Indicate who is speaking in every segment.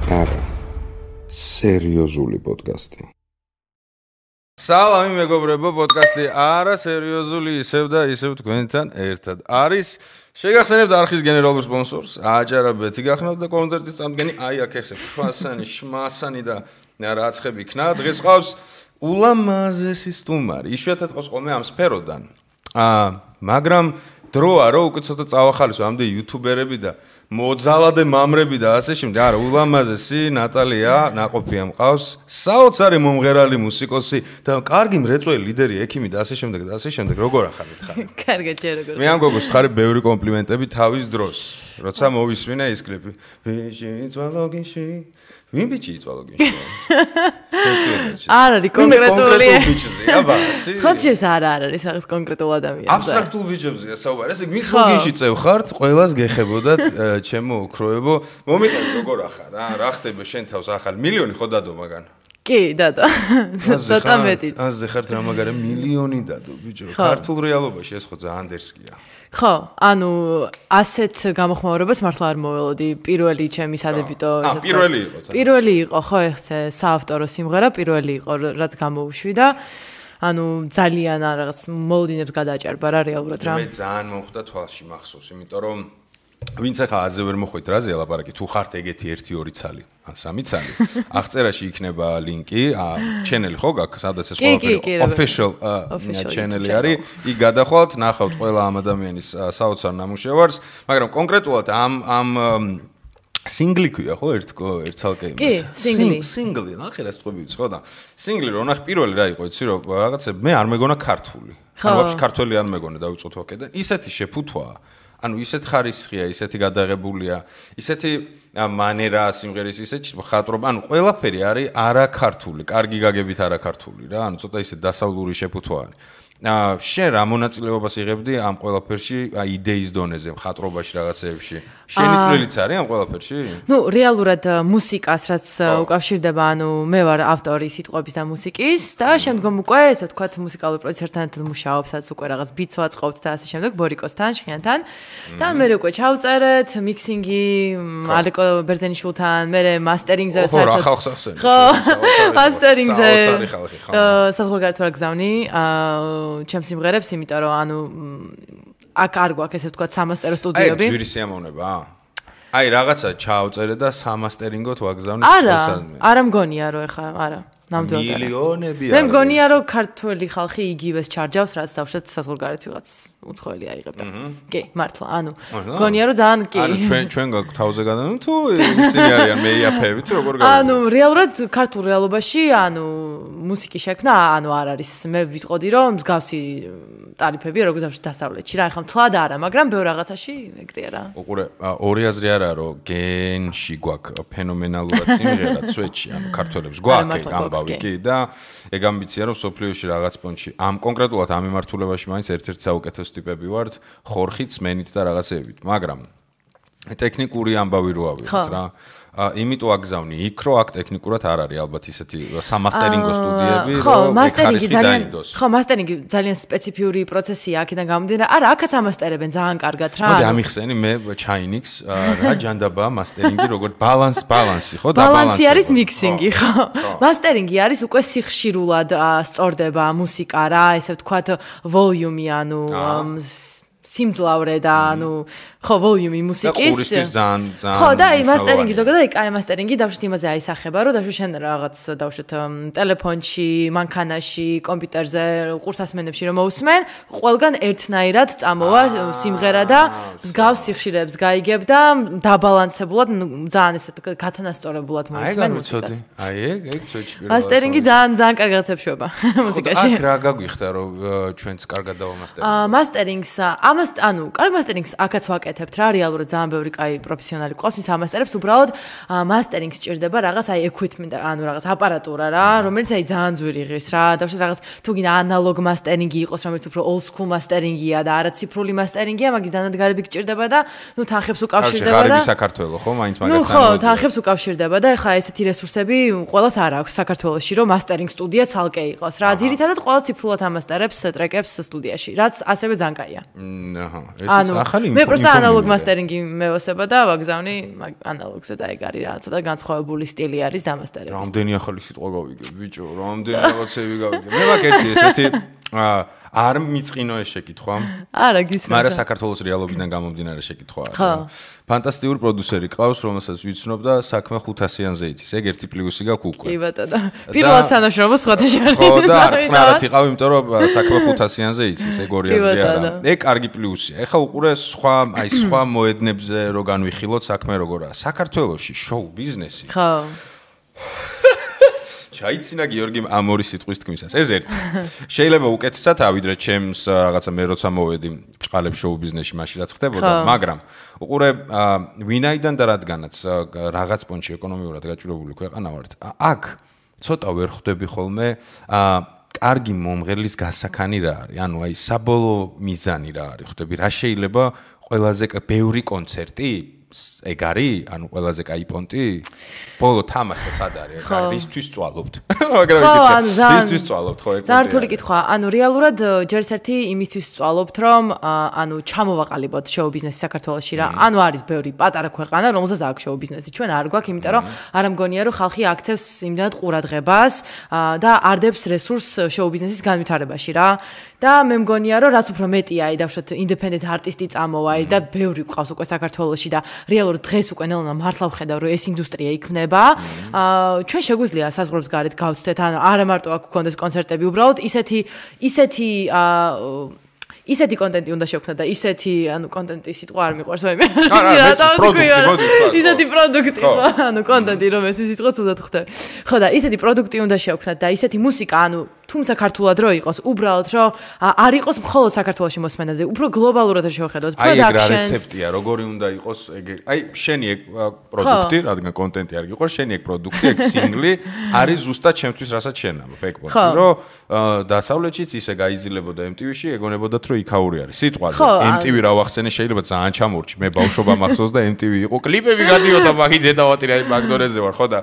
Speaker 1: არა, სერიოზული პოდკასტი.
Speaker 2: სალამი მეგობრებო, პოდკასტი არა სერიოზული ისევ და ისევ თქვენთან ერთად არის. შეგახსენებთ არხის გენერალურ სპონსორს, აჯარაბეთი გახსნათ და კონცერტის წამდგენი აი აქ ესე ხვასანი, შმასანი და რაცხები იქნა. დღეს ყავს ულამაზესი სტუმარი. იშვიათად ყავს ხოლმე ამ სფეროდან. მაგრამ დროა რომ უკვე ცოტა წავახალისო ამდე იუთუბერები და მოძალადე მამრები და ასე შემდეგ. არა, ულამაზესი ნატალია ნაყოფია მყავს, საოცარი მომღერალი, მუსიკოსი და კარგი მრეწველი ლიდერი, ექიმი და ასე შემდეგ და ასე შემდეგ. როგორ ახალით ხარ?
Speaker 3: კარგად, ჯერ როგორ.
Speaker 2: მე ამ გოგოს ხარი ბევრი კომპლიმენტები თავის დროს, როცა მოვისმინე ის კლიპი. ბიჭი იწვალოგინში, ვინ ბიჭი იწვალოგინში?
Speaker 3: არ არის კონკრეტული
Speaker 2: ბიჭზე, აბა, ასე.
Speaker 3: ხოჩერს არ არის რაღაც კონკრეტულ ადამიანზე.
Speaker 2: აბსტრაქტულ ბიჭებზეა საუბარი. ესე ვინც ლოგინში წევ ხართ, ყველას გეხებოდათ, ჩემო ოქროებო. მომიყევი როგორ ახარ, რა ხდება შენ თავს ახალ მილიონი ხო დადო მაგან?
Speaker 3: კი, დადო. ცოტა მეტიც.
Speaker 2: აზე ხართ რა მაგარი მილიონი დადო, ბიჭო. ქართულ რეალობაში ეს ხო ძალიან დერსკია.
Speaker 3: ხო, ანუ ასეთ გამოხმაურებას მართლა არ მოველოდი. პირველი ჩემი სადებიტო
Speaker 2: პირველი იყო.
Speaker 3: პირველი იყო, ხო, ეხლა საავტორო სიმღერა პირველი იყო, რაც გამოუშვი და ანუ ძალიან რაღაც მოლოდინებს გადააჭარბა რა რეალურად რა.
Speaker 2: მე ძალიან მომხვდა თვალში მახსოვს, იმიტომ რომ ვინც ახლა აზე ვერ მოხვით რაზე ლაპარაკი, თუ ხართ ეგეთი 1-2 ცალი, ან 3 ცალი, აღწერაში იქნება ლინკი, ჩენელი ხო გაქვს, სადაც ეს ყველაფერი official ჩენელი არის, იქ გადახვალთ, ნახავთ ყველა ამ ადამიანის საოცარ ნამუშევარს, მაგრამ კონკრეტულად ამ სინგლი ქვია ხო ერთ ცალკე იმას.
Speaker 3: კი,
Speaker 2: სინგლი, ნახე რა სტყვები ვიცი ხო და სინგლი რო ნახე პირველი რა იყო იცი რომ რაღაცა მე არ მეგონა ქართული. ანუ ვაფშე ქართველი არ მეგონა დავიწყოთ ვაკე და ისეთი შეფუთვაა. ანუ ისეთ ხარისხია, ისეთი გადაღებულია, ისეთი მანერა სიმღერის, ისეთი ხატრობა, ანუ ყველაფერი არის არაქართული, კარგი გაგებით არაქართული რა, ანუ ცოტა ისე დასავლური შეფუთვაა. შენ რა მონაწილეობას იღებდი ამ ყველაფერში, იდეის დონეზე, ხატრობაში რაღაცეებში? შენი წვლილიც არის ამ ყველაფერში?
Speaker 3: ნუ რეალურად მუსიკას რაც უკავშირდება, ანუ მე ვარ ავტორი სიტყვების და მუსიკის და შემდგომ უკვე ესე ვთქვათ მუსიკალური პროდიუსერთან ერთად მუშაობს, რაც უკვე რაღაც ბიტს ვაწყობთ და ასე შემდეგ ბორიკოსთან, შხიანთან. და მე უკვე ჩავწერეთ, მიქსინგი ალეკო ბერძენიშვილთან, მე მასტერინგზე საერთოდ ხო, მასტერინგზე საზღვარგარეთ ვარ გზავნი, ჩემს სიმღერებს, იმიტომ რომ ანუ აქ არ გვაქვს ესე ვთქვათ სამასტერო სტუდიოები.
Speaker 2: აი, ძვირი სიამოვნებაა. აი, რაღაცა ჩაავწერე და სამასტერინგოთ ვაგზავნე.
Speaker 3: არა მგონია რომ ეხა არა. ნამდვილად.
Speaker 2: მილიონები.
Speaker 3: მე მგონია რომ ქართველი ხალხი იგივეს ჩარჯავს, რაც დავშეთ საზღვარგარეთ ვიღაც უცხოელი აიღებდა. კი, მართლა. ანუ მგონია რომ ძალიან კი.
Speaker 2: ანუ ჩვენ გაქვს თავზე გადანო თუ ისინი არიან მეიაფებით როგორ გავიგე?
Speaker 3: ანუ რეალურად ქართულ რეალობაში ანუ მუსიკის შექმნა ანუ არ არის. მე ვიტყოდი რომ მსგავსი ტარიფებია როგორც დავშეთ დასავლეთში რა. ეხლა მთლად არა, მაგრამ ბევრ რაღაცაში ეგრეა რა.
Speaker 2: უყურე, ორი აზრი არაა რომ გენში გვაქვს ფენომენალურად სიმღერა სვეტში, ანუ ქართველებს გვაქვს კი და ეგ ამბიცია რომ სოფლიოში რაღაც პონჩი ამ კონკრეტულად ამ მიმართულებაში მაინც ერთ-ერთი საუკეთესო ტიპები ვართ ხორხით სმენით და რაღაცეებით მაგრამ ტექნიკური ამბავი რო ავიღოთ რა იმიტომ აგზავნი იქ რო აქ ტექნიკურად არ არის ალბათ ისეთი სამასტერინგო სტუდიები
Speaker 3: რომ მასტერინგი ძალიან ხო მასტერინგი ძალიან სპეციფიური პროცესია აქედან გამომდინარე არა აქაც ამასტერებენ ძალიან კარგად რა
Speaker 2: მოდი ამიხსენი მე ჩაინიქს რა ჯანდაბაა მასტერინგი როგორც ბალანსი ხო და
Speaker 3: ბალანსი არის მიქსინგი ხო მასტერინგი არის უკვე სიხშირულად სწორდება მუსიკა რა ესე ვთქვათ ვოლიუმი ანუ სიმძლავრე და ანუ ხო ვოლიუმი მუსიკის ხო და აი მასტერინგი ზოგადად აი კაი მასტერინგი დავშეთ იმაზე აისახება რომ დავშეთ შენ რაღაც დავშეთ ტელეფონში მანქანაში კომპიუტერზე ყურსასმენებში რომ მოусმენ ყველგან ერთნაირად წამოვა სიმღერა და მსგავს სიხშირეებს გაიგებ და დაბალანსებულად ძალიან ესეთ გათანასწორებულად მოусმენ მუსიკას
Speaker 2: აი ეგ ცოტა
Speaker 3: მასტერინგი ძალიან კარგი რაცეპშუება მუსიკაში
Speaker 2: აქ რა გაგვიხდა რომ ჩვენც კარგად დავამასტერინგ
Speaker 3: მასტერინგს ანუ კარგ მასტერინგს აქაც ვაკეთებთ რა რეალურად ძალიან ბევრი კაი პროფესიონალი ყავს ვის ამასტერებს უბრალოდ მასტერინგს სჭირდება რაღაც აი equipment ანუ რაღაც აპარატურა რა რომელიც აი ძალიან ძვირი ღირს რა დავშეთ რაღაც თუ გინდა ანალოგ მასტერინგი იყოს რომელიც უფრო old school მასტერინგია და არა ციფრული მასტერინგია მაგის დანადგარები გჭირდება და ნუ თანხებს უკავშირდება და
Speaker 2: საქართველოს ხო მაინც მაგას
Speaker 3: ნუ ხო თანხებს უკავშირდება და ეხლა ესეთი რესურსები ყველას არ აქვს საქართველოში რომ მასტერინგ სტუდია ცალკე იყოს რა ძირითადად ყველა ციფრულად ამასტერებს ტრეკებს სტუდიაში რაც ასევე ძალიან კაია
Speaker 2: აჰა, ეს ახალი
Speaker 3: მე პროსტა ანალოგ მასტერინგი მევასება და ვაგზავნი ანალოგზე და ეგ არის რა, ცოტა განსხვავებული სტილი არის დამასტერების.
Speaker 2: რამდენი ახალი სიტყვა გავიგე, ბიჭო, რამდენი რაღაცები გავიგე. მე მაგ ერთი ესეთი არ მიწყინო ეს შეკითხვა.
Speaker 3: არა, გისმენთ.
Speaker 2: მაგრამ საქართველოს რეალობიდან გამომდინარე შეკითხვა არის. ფანტასტიკური პროდიუსერი ყავს, რომელსაც ვიცნობ და საქმე 500-იანზე იცის. ეგ ერთი პლუსი გაქვს უკვე.
Speaker 3: კი ბატონო. პირველად თანამშრომლობს სხვათა შორის.
Speaker 2: ხო და არწნარად იყავ, იმიტომ რომ საქმე 500-იანზე იცის, ეგ 200-ზე არა. ეგ კარგი პლუსია. ეხლა უყურე სხვა მოედნებზე რო განვიხილოთ საქმე როგორაა. საქართველოში შოუ ბიზნესი.
Speaker 3: ხო.
Speaker 2: ჩაიცინა გიორგი ამ ორი სიტყვის თქმისას. ეს ერთი. შეიძლება უკეთესად ავიდრე ჩემს რაღაცა მე როცა მოვედი ჭყალებ შოუ ბიზნესში მაშინ რაც ხდებოდა, მაგრამ უყურე ვინაიდან და რადგანაც რაღაც პონჩი ეკონომიურად გაჭირებული ქვეყანა ვართ. აქ ცოტა ვერ ხვდები ხოლმე კარგი მომღერლის გასაქანი რა არის. ანუ აი საბოლოო მიზანი რა არის. ხვდები რა შეიძლება ყველაზე ბევრი კონცერტი ეგ არის? ანუ ყველაზე კაი პონტი? ბოლო თამაშა სად არის? რისთვის წვალობთ? მაგრამ რისთვის წვალობთ ხო ეგ?
Speaker 3: ზართული კითხვა. ანუ რეალურად ჯერს ერთი იმისთვის წვალობთ, რომ ანუ ჩამოვაყალიბოთ შოუ ბიზნესი საქართველოში რა. ანუ არის ბევრი პატარა ქვეყანა, რომელსაც აქვს შოუ ბიზნესი. ჩვენ არ გვაქვს, იმიტომ რომ არ ამგონია რომ ხალხი აქცევს იმდანად ყურადღებას და არდებს რესურსს შოუ ბიზნესის განვითარებაში რა. და მე მგონია რომ რაც უფრო მეტია აი დავშოთ ინდეპენდენტ არტისტი წამოვა და ბევრი ყავს უკვე საქართველოში და რეალურად დღეს უკვე ნელა მართლა ვხედავ რომ ეს ინდუსტრია იქნება. ჩვენ შეგვიძლია საზღვრებს გარეთ გავცეთ, ან არა მარტო აქ გქონდეს კონცერტები, უბრალოდ ისეთი კონტენტი უნდა შევქმნათ და ისეთი ანუ კონტენტი სიტყვა არ მიყვარს მე. ისეთი პროდუქტი ხო, ანუ კონტენტი რომ ეს სიტყვა ცუდად ხვდები. ხო და ისეთი პროდუქტი უნდა შევქმნათ და ისეთი მუსიკა, ანუ თუმცა ქართულად რო იყოს, უბრალოდ რომ არ იყოს მხოლოდ საქართველოში მოსმენადი, უფრო გლობალურად შევხედოთ
Speaker 2: პროდაქშენს. აი ეგ რა რეცეპტია, როგორი უნდა იყოს ეგ. აი შენი ეგ პროდუქტი, რადგან კონტენტი არ გიყურს, შენი ეგ პროდუქტი, ეგ სინგლი არის ზუსტად ჩემთვის, რასაც შენ ამ ფექბოდი, რომ დასავლეთშიც ისე გაიზილებოდა MTV-ში, ეგონებოდათ რომ იქაური არის. სიტყვაზე MTV რა ვახსენე, შეიძლება ძალიან ჩამორჩი. მე ბავშვობა მახსოვს და MTV იყო, კლიპები გადიოდა მაგ დედავატირა მაგდორეზე ვარ, ხო და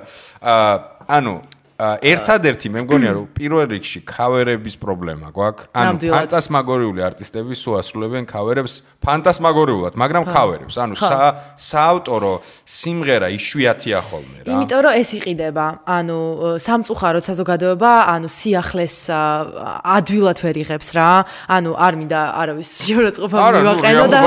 Speaker 2: ანუ ერთადერთი მე მგონია რომ პირველ რიგში ქავერების პრობლემა გვაქვს. ანუ ფანტასმაგორიული არტისტები სულ ასრულებენ ქავერებს ფანტასმაგორიულად, მაგრამ ქავერებს. ანუ საავტორო სიმღერა იშვიათია ხოლმე რა.
Speaker 3: იმიტომ რომ ეს იყიდება. ანუ სამწუხაროდ საზოგადოება, ანუ სიახლეს ადვილად ვერ იღებს რა. ანუ არ მინდა არავის შეურაცხყოფა მივაყენო და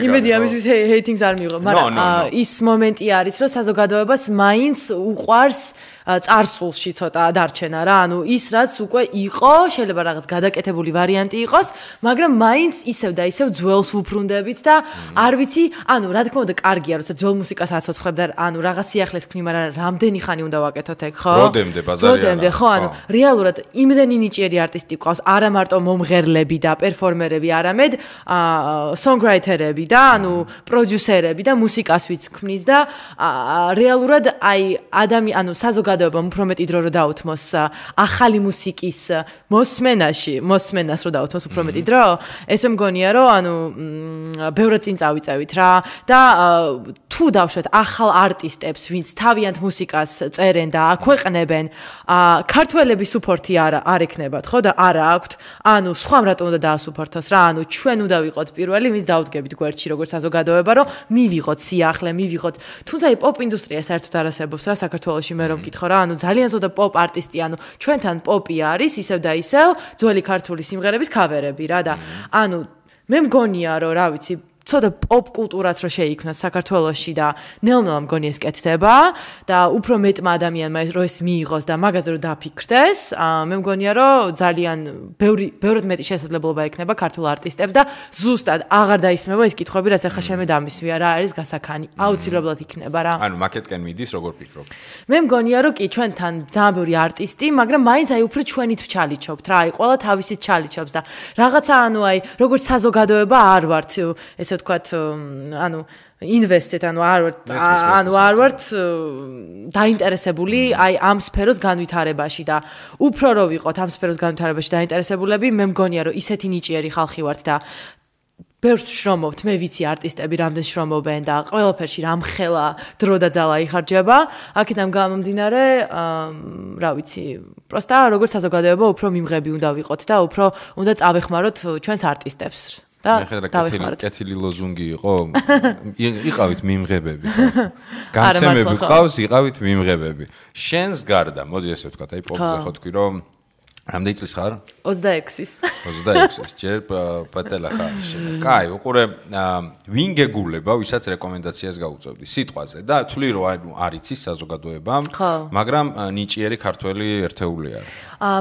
Speaker 3: იმედი ამისთვის ჰეიტინგს არ მიიღო, მაგრამ ის მომენტი არის რომ საზოგადოებას მაინც უყვარს წარსულში ცოტა დარჩენა რა, ანუ ის რაც უკვე იყო, შეიძლება რაღაც გადაკეთებული ვარიანტი იყოს, მაგრამ მაინც ისევ და ისევ ძველს ვუბრუნდებით და არ ვიცი, ანუ რა თქმა უნდა კარგია, როცა ძველ მუსიკას აცოცხლებ და ანუ რაღაც სიახლეს ქნი, მაგრამ რამდენი ხანი უნდა ვაკეთოთ ეგ, ხო?
Speaker 2: როდემდე ბაზარია.
Speaker 3: როდემდე, ხო, ანუ რეალურად იმდენი ნიჭიერი არტისტი ყავს, არა მარტო მომღერლები და პერფორმერები, არამედ სონგრაითერები და ანუ პროდიუსერები და მუსიკას ვიც ქმნის და რეალურად აი ანუ საზოგადოებამ უფრო მეტი დრო რო დაუთმოს ახალი მუსიკის მოსმენას რო დაუთმოს უფრო მეტი დრო, ესე მგონია რომ ანუ ბევრად წინ წავიწევით რა და თუ დავშვეთ ახალ არტისტებს, ვინც თავიანთ მუსიკას წერენ და აქვეყნებენ, ქართველების სუპორტი არ ექნებათ, ხო და არა აქვთ, ანუ სხვამ რატომ უნდა დაასუპორტოს რა, ანუ ჩვენ უნდა ვიყოთ პირველი, ვინც დავდგებით გვერდში როგორც საზოგადოება, რომ მივიღოთ სიახლე, მივიღოთ, თუმცა აი პოპ ინდუსტრია საერთოდ არ არსებობს რა საქართველოში მე რომ მკითხო რა, ანუ ძალიან ზოდა პოპ არტისტი, ანუ ჩვენთან პოპი არის ისევ და ისევ ძველი ქართული სიმღერების ქავერები რა და ანუ მე მგონია რომ რა ვიცი ცოტა პოპ კულტურაც რო შეიქმნას საქართველოში და ნელ-ნელა მგონი ეს კეთდება და უფრო მეტმა ადამიანმა რო ეს მიიღოს და მაგაზე რო დაფიქრდეს, მე მგონია რომ ძალიან ბევრად მეტი შესაძლებლობა ექნება ქართულ არტისტებს და ზუსტად აღარ დაისმება ეს კითხვები, რაც ახლა შემე დამისვია რა არის გასაქანი. აუცილებლად იქნება რა.
Speaker 2: ანუ მაკეტკენ მიდის როგორ ფიქრობ?
Speaker 3: მე მგონია რომ კი ჩვენთან ძალიან ბევრი არტისტი, მაგრამ მაინც აი უფრო ჩვენით ვჩალიჩობთ რა, აი ყველა თავისით ჩალიჩობს და რაღაცა ანუ აი როგორც საზოგადოება არ ვართ ესე ვთქვათ, ანუ ინვესტეთ, ანუ არ ვართ დაინტერესებული აი ამ სფეროს განვითარებაში და უფრო რო ვიყოთ ამ სფეროს განვითარებაში დაინტერესებულები, მე მგონია რომ ისეთი ნიჭიერი ხალხი ვართ და ბევრს შრომობთ, მე ვიცი არტისტები რამდენ შრომობენ და ყველაფერში რამხელა დრო და ძალა იხარჯება. აქედან გამომდინარე, რა ვიცი, პროსტა როგორც საზოგადოება უფრო მიმღები უნდა ვიყოთ და უფრო უნდა წავეხმაროთ ჩვენს არტისტებს. და
Speaker 2: კეთილი ლოზუნგი იყო. იყავით მიმღებები. გამცემები ყავს, იყავით მიმღებები. შენს გარდა, მოდი ესე ვთქვა, აი პოპზე ხო თქვი რომ რამდენი წლის ხარ?
Speaker 3: 26-ის.
Speaker 2: 26-ის. ჯერ პატელა ხარ. კაი, უყურე ვინ გეგულება, ვისაც რეკომენდაციას გაუწევდი სიტყვაზე და თვლი რომ არ იცის საზოგადოებამ, მაგრამ ნიჭიერი ქართველი ერთეული არის.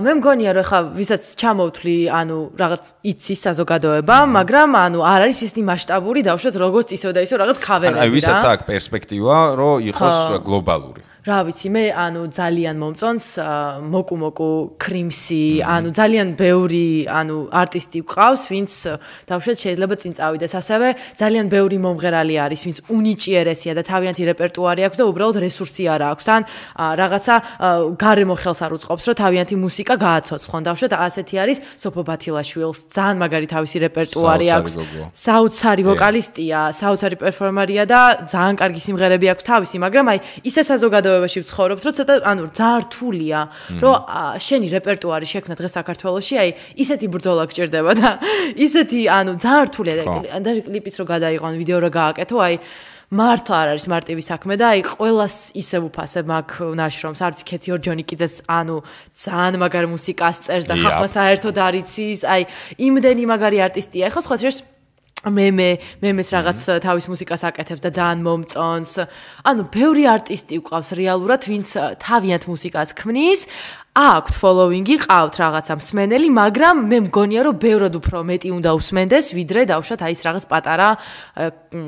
Speaker 3: მე მგონია რომ ხა ვისაც ჩამოვთვლი, ანუ რაღაც იცის საზოგადოება, მაგრამ ანუ არ არის ისეთი მასშტაბური დავუშვათ როგორც ისევ და ისევ რაღაც ქავერები და.
Speaker 2: აი ვისაც აქვს პერსპექტივა, რომ იყოს გლობალური.
Speaker 3: რა ვიცი, მე ანუ ძალიან მომწონს მოკუმოკუ, კრიმსი, ანუ ძალიან ბევრი ანუ არტისტი გვყავს, ვინც დავუშვათ შეიძლება წინ წავიდეს. ასევე ძალიან ბევრი მომღერალი არის, ვინც უნიჭიერესია და თავიანთი რეპერტუარი აქვს და უბრალოდ რესურსი არ აქვს. ან რაღაცა გარემო ხელს არ უწყობს, რომ თავიანთი მუსიკა გააცოცხლონ. დავუშვათ ასეთი არის სოფო ბათილაშვილს, ძალიან მაგარი თავისი რეპერტუარი აქვს. საოცარი ვოკალისტია, საოცარი პერფორმერია და ძალიან კარგი სიმღერები აქვს თავისი, მაგრამ აი ისე საზოგადოებაში ვცხოვრობთ, რომ ცოტა ანუ ძალიან რთულია, რომ შენი რეპერტუარი შექმნა დღეს საქართველოში, აი ისეთი ბრძოლა გჭირდება და ისეთი ანუ ძალიან რთულია და კლიპიც რო გადაიღონ, ვიდეო რო გააკეთო, აი მართლა არ არის მარტივი საქმე და აი ყველას ისევ უფასებ მაგ ნაშრომს, არც ქეთი ორჯონიკიძეც ანუ ძალიან მაგარ მუსიკას წერს და ხალხმა საერთოდ არ იცის, აი იმდენი მაგარი არტისტია. ეხლა სხვა შეს მემეს რაღაც თავის მუსიკას აკეთებს და ძალიან მომწონს. ანუ ბევრი არტისტი ვყავს რეალურად, ვინც თავიანთ მუსიკას ქმნის. აქვთ ფოლოვინგი, ყავთ რაღაცა მსმენელი, მაგრამ მე მგონია რომ ბევრად უფრო მეტი უნდა უსმენდეს, ვიდრე დავუშვათ აი ეს რაღაც პატარა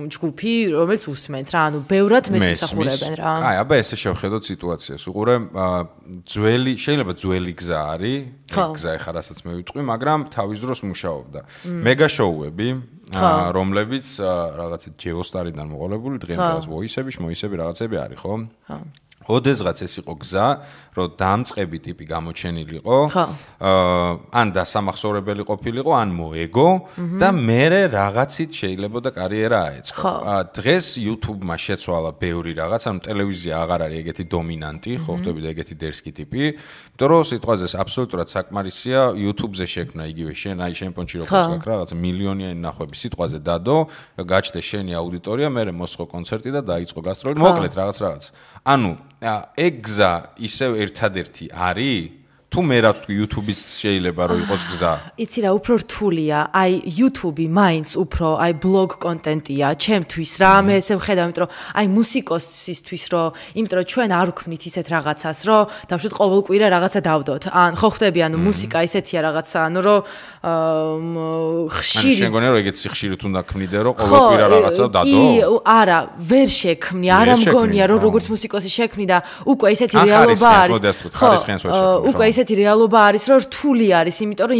Speaker 3: ჯგუფი, რომელიც უსმენთ რა, ანუ ბევრად მეც ისახურებენ რა.
Speaker 2: აი, აბა ესე შევხედოთ სიტუაციას. უყურე შეიძლება ძველი გზა არის, გზა ეხა რასაც მე ვიტყვი, მაგრამ თავის დროს მუშაობდა. მეგა შოუები, რომლებიც რაღაცა ჯეოსტარიდან მოყოლებული, დღემდე მოისები რაღაცები არის, ხო? ხო. ოდესღაც ეს იყო გზა, რომ დამწყები ტიპი გამოჩენილიყო, ან დასამახსოვრებელი ყოფილიყო, ან მოეგო და მერე რაღაცით შეიძლება და კარიერა აეწყო. დღეს YouTube-მა შეცვალა ბევრი რაღაც, ანუ ტელევიზია აღარ არის ეგეთი დომინანტი, ხო ხტები და ეგეთი დერსკი ტიპი, იმიტომ რომ სიტყვაზე აბსოლუტურად საკმარისია YouTube-ზე შექმნა იგივე შენ, აი შენ პონჩი როგორც გაქვს რაღაცა მილიონიანი ნახვები სიტყვაზე დადო, გაჩნდეს შენი აუდიტორია, მერე მოსხო კონცერტი და დაიწყო გასტროლი, მოკლედ რაღაც. ანუ ეგ გზა ისევ ერთადერთი არის? თუ მე რაც თქვი YouTube-ის შეიძლება რომ იყოს გზა.
Speaker 3: იცი რა, უფრო რთულია. აი YouTube-ი მაინც უფრო აი ბლოგ კონტენტია ჩემთვის რა. მე ესე ვხედავ, იმიტომ რომ აი მუსიკოსისთვის რომ, იმიტომ რომ ჩვენ არ ვქმნით ისეთ რაღაცას, რომ დავშვათ ყოველკვირა რაღაცა დავდოთ. ან ხო ხტები, ანუ მუსიკა ისეთია რაღაცა, ანუ რომ ხშირი.
Speaker 2: შენ გონია რომ ეგეც ხშირით უნდა ქმნიდე, რომ ყოველკვირა რაღაცა დადო?
Speaker 3: კი, არა, ვერ შექმნი, არა მგონია რომ როგორც მუსიკოსი შექმნი და უკვე ისეთი რეალობა არის. უკვე ისეთი რეალობა არის, რომ რთული არის, იმიტომ რომ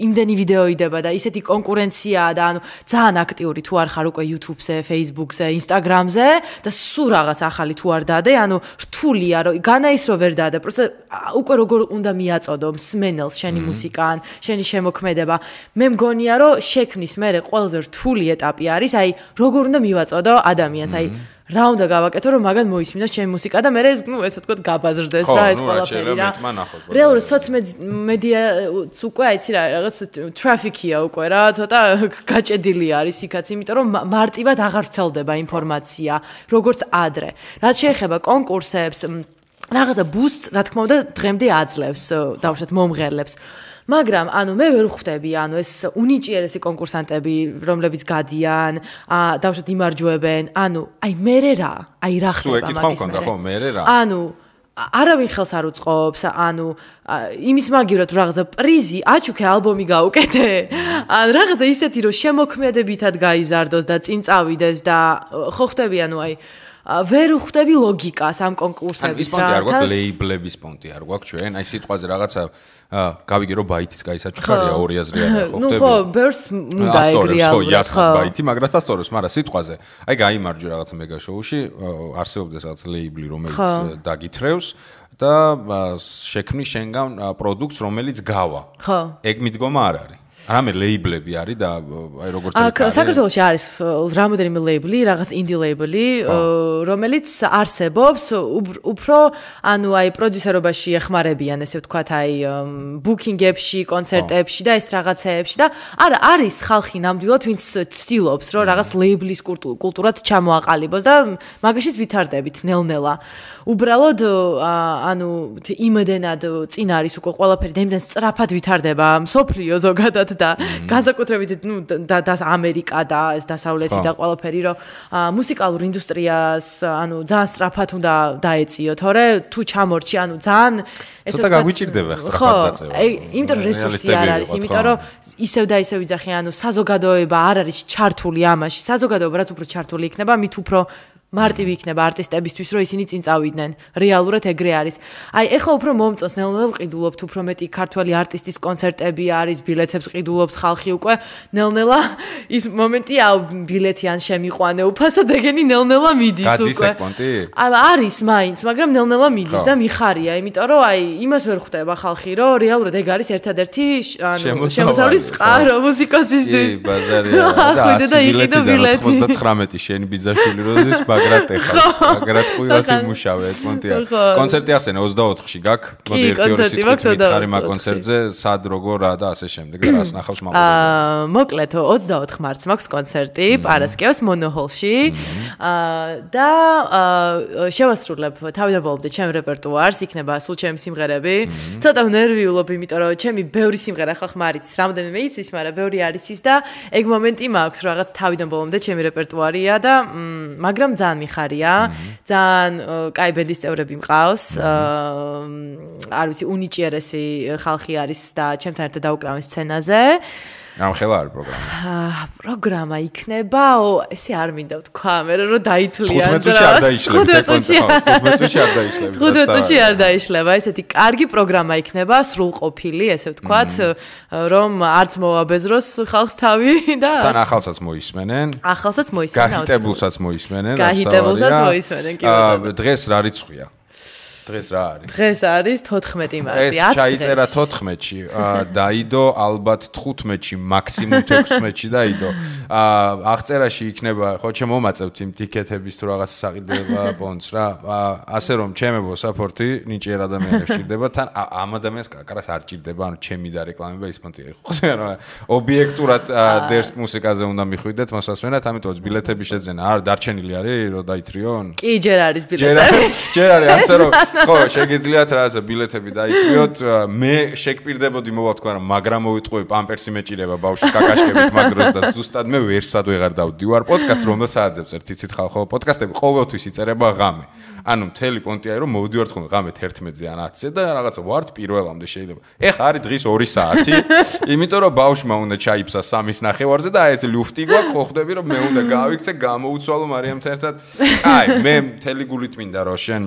Speaker 3: იმდენი ვიდეო იდება და ისეთი კონკურენციაა და ანუ ძალიან აქტიური თუ არ ხარ უკვე YouTube-ზე, Facebook-ზე, Instagram-ზე და სულ რაღაც ახალი თუ არ დადე, ანუ რთულია, რომ განა ის რომ ვერ დადე, პროსტა უკვე როგორ უნდა მიაწოდო მსმენელს შენი მუსიკა ან შენი შემოქმედება. მე მგონია რომ შექმნის მერე ყველაზე რთული ეტაპი არის, აი როგორ უნდა მივაწოდო ადამიანს, აი რა უნდა გავაკეთო რომ მაგან მოისმინოს ჩემი მუსიკა და მე ესე ვთქვათ გაბაზრდეს რა ეს ყველაფერი რა. რეალურად სოციომედიაც უკვე აიცი რა რაღაც ტრაფიკია უკვე რა, ცოტა გაჭედილი არის იქაც, იმიტომ რომ მარტივად აღარ ვრცელდება ინფორმაცია, როგორც ადრე. რაც შეეხება კონკურსებს, რაღაცა ბუსტს, რა თქმა უნდა, დღემდე აძლევს დავუშვათ მომღერლებს. მაგრამ ანუ მე ვერ ხვდები, ანუ ეს უნიჭიერესი კონკურსანტები, რომლებიც გადიან, დავუშვათ იმარჯვებენ, ანუ აი მერე რა, აი რა ხდება მაგის მერე. ანუ არავინ ხელს არ უწყობს, ანუ იმის მაგივრად რაღაცა პრიზი, აჩუქე ალბომი გაუკეთე. ან რაღაცა ისეთი რომ შემოქმედებითად გაიზარდოს და წინ წავიდეს და ხო ხდები, ანუ აი ვერ ხვდები ლოგიკას ამ კონკურსების
Speaker 2: რა. ის პონტი არ გვაქვს, ლეიბლების პონტი არ გვაქვს ჩვენ, აი სიტყვაზე რაღაცა გავიგე რომ ბაითიც გაისაჩუქარია 2000 რია ხო ხდები.
Speaker 3: ნუ ხო, ბერს უნდა ეგრეა.
Speaker 2: ხო, იასხა ბაითი, მაგრამ დასწორებს, მაგრამ სიტყვაზე. აი გაიმარჯვე რაღაცა მეგა შოუში, არსებობს რაღაც ლეიბლი, რომელიც დაგითრევს და შექმნის შენგან პროდუქტს, რომელიც გავა.
Speaker 3: ხო.
Speaker 2: ეგ მიდგომა არ არის. რამე ლეიბლები არის და აი როგორც არის.
Speaker 3: საქართველოში არის რამოდენიმე ლეიბლი, რაღაც ინდი ლეიბლი, რომელიც არსებობს, უფრო ანუ აი პროდიუსერობაში ეხმარებიან, ესე ვთქვათ, აი ბუკინგებში, კონცერტებში და ეს რაღაცეებში და არა არის ხალხი ნამდვილად, ვინც ცდილობს, რომ რაღაც ლეიბლის კულტურად ჩამოაყალიბოს და მაგაშიც ვითარდებით ნელ-ნელა. უბრალოდ ანუ იმედენად წინ არის უკვე ყველაფერი და იმდენ სწრაფად ვითარდება მსოფლიო ზოგადად და განსაკუთრებით და ამერიკა და ეს დასავლეთი და ყველაფერი რომ მუსიკალურ ინდუსტრიას ანუ ძალიან სწრაფად უნდა დაეწიო, თორე თუ ჩამორჩი, ანუ ძალიან
Speaker 2: ესე ცოტა გაგვიჭირდება სწრაფად დაწევა.
Speaker 3: იმიტომ რომ რესურსი არ არის, იმიტომ რომ ისევ და ისევ იძახი, ანუ საზოგადოება არ არის ჩართული ამაში. საზოგადოება რაც უფრო ჩართული იქნება, მით უფრო მარტივი იქნება არტისტებისთვის, რომ ისინი წინ წავიდნენ. რეალურად ეგრე არის. აი, ეხლა უფრო მომწონს ნელ-ნელა ვყიდულობთ, უფრო მეტი ქართველი არტისტის კონცერტები არის, ბილეთებს ყიდულობს ხალხი უკვე. ნელ-ნელა ის მომენტია, ბილეთი ან შემიყვანე უფასოდ, ეგენი ნელ-ნელა მიდის უკვე.
Speaker 2: გადის ეგ პონტი?
Speaker 3: არის მაინც, მაგრამ ნელ-ნელა მიდის და მიხარია, იმიტომ რომ აი, იმას ვერ ხვდება ხალხი, რომ რეალურად ეგ არის ერთადერთი ანუ შემოსავლის წყარო მუსიკოსისთვის.
Speaker 2: კი, ბაზარია. და იყიდო ბილეთი 99 შენი ბიძაშვილი როდის მაგრამ ყუილად იმუშავე ეს პონტია. კონცერტი ახსენე 24-ში გაქვს. მოდი 1-2 სიტყვით ხარი მაგ კონცერტზე, სად როგორ რა და ასე შემდეგ და რას ნახავს მაყურებელი.
Speaker 3: მოკლედ 24 მარტს მაქვს კონცერტი პარასკევს მონოჰოლში. და შევასრულებ თავიდან ბოლომდე ჩემ რეპერტუარს, იქნება სულ ჩემი სიმღერები. ცოტა ნერვიულობ, იმიტომ რომ ჩემი ბევრი სიმღერა ხალხმა არის, რამდენიმე იცის, მაგრამ ბევრი არის ის და ეგ მომენტი მაქვს, რომ რაღაც თავიდან ბოლომდე ჩემი რეპერტუარია და მაგრამ ძალიან მიხარია, ძალიან კაი ბენდის წევრები მყავს. არ ვიცი, უნიჭიერესი ხალხი არის და ჩემთან ერთად დაუკრავენ სცენაზე.
Speaker 2: ამხელა არის პროგრამა.
Speaker 3: პროგრამა იქნება, ესე არ მინდა ვთქვა, მე რომ დაითვლიან.
Speaker 2: 15 წუთში არ დაიშლები, 15 წუთში არ დაიშლები.
Speaker 3: 15 წუთში არ დაიშლება, ესეთი კარგი პროგრამა იქნება, სრულყოფილი, ესე ვთქვათ, რომ არც მოაბეზროს ხალხს თავი და
Speaker 2: თან ახალსაც მოისმენენ.
Speaker 3: ახალსაც მოისმენენ.
Speaker 2: გაჰიტებულსაც მოისმენენ.
Speaker 3: გაჰიტებულსაც მოისმენენ, კი ბატონო.
Speaker 2: დღეს რა რიცხვია? დღეს რა არის?
Speaker 3: დღეს არის 14 მარტი.
Speaker 2: ეს ჩაიწერა 14-ში, დაიდო ალბათ 15-ში, მაქსიმუმ 16-ში დაიდო. აღწერაში იქნება, ხო შემომაწევთ იმ ტიკეტების თუ რაღაც საყიდება პონტს რა. ასე რომ ჩემებო საპორტი ნიჭიერ ადამიანებს ჭირდება, თან ამ ადამიანს კაკარას არ ჭირდება, ანუ ჩემი და რეკლამება ის პონტი არის. ხო რა, ობიექტურად დერსკ მუსიკაზე უნდა მიხვიდეთ მოსასმენად, ამიტომ ბილეთები შეძენა. არ დარჩენილი არის რომ დაითრიონ?
Speaker 3: კი, ჯერ არის ბილეთები.
Speaker 2: ჯერ არის, ასე რომ ხო, შეგიძლიათ რაღაცა ბილეთები დაითრიოთ. მე შეგპირდებოდი მოვა თქვა რა, მაგრამ მოვიტყვი პამპერსი მეჭირება ბავშვის კაკაშკებით მაგროს და ზუსტად მე ვერსად ვეღარ დავდივარ პოდკასტს რომ სააძებს ერთ იცით ხალხო პოდკასტები ყოველთვის იწერება ღამე. ანუ მთელი პონტია რომ მოვდივართ ხოლმე ღამე 11-ზე ან 10-ზე და რაღაცა ვართ პირველამდე შეიძლება. ეხა არის დღის 2 საათი, იმიტომ რომ ბავშვმა უნდა ჩაიფსა 3:30-ზე და აი ეს ლუფტი გვაქვს, ხო ხვდები რომ მე უნდა გავიქცე, გამოუცვალო მარიამთან ერთად. აი, მე მთელი გულით მინდა რომ შენ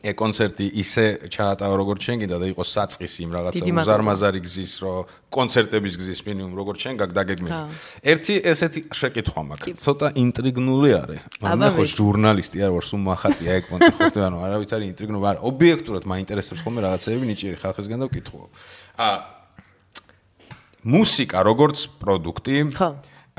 Speaker 2: კონცერტი ისე ჩაატავა როგორც შენ გინდა და იყოს საწყისი იმ რაღაცა უზარმაზარი გზის რომ კონცერტების გზის მინიმუმ როგორც შენ გაგდაგეგმები. ერთი ესეთი შეკითხვა მაქვს. ცოტა ინტრიგნული არის. მე ხო ჟურნალისტი არ ვარ, სულ მახატია ეგ პონტი ხო ანუ არავითარი ინტრიგნული არ. ობიექტურად მაინტერესებს ხოლმე რაღაცეები ნიჭიერი ხალხისგან და ვკითხულობ. მუსიკა როგორც პროდუქტი,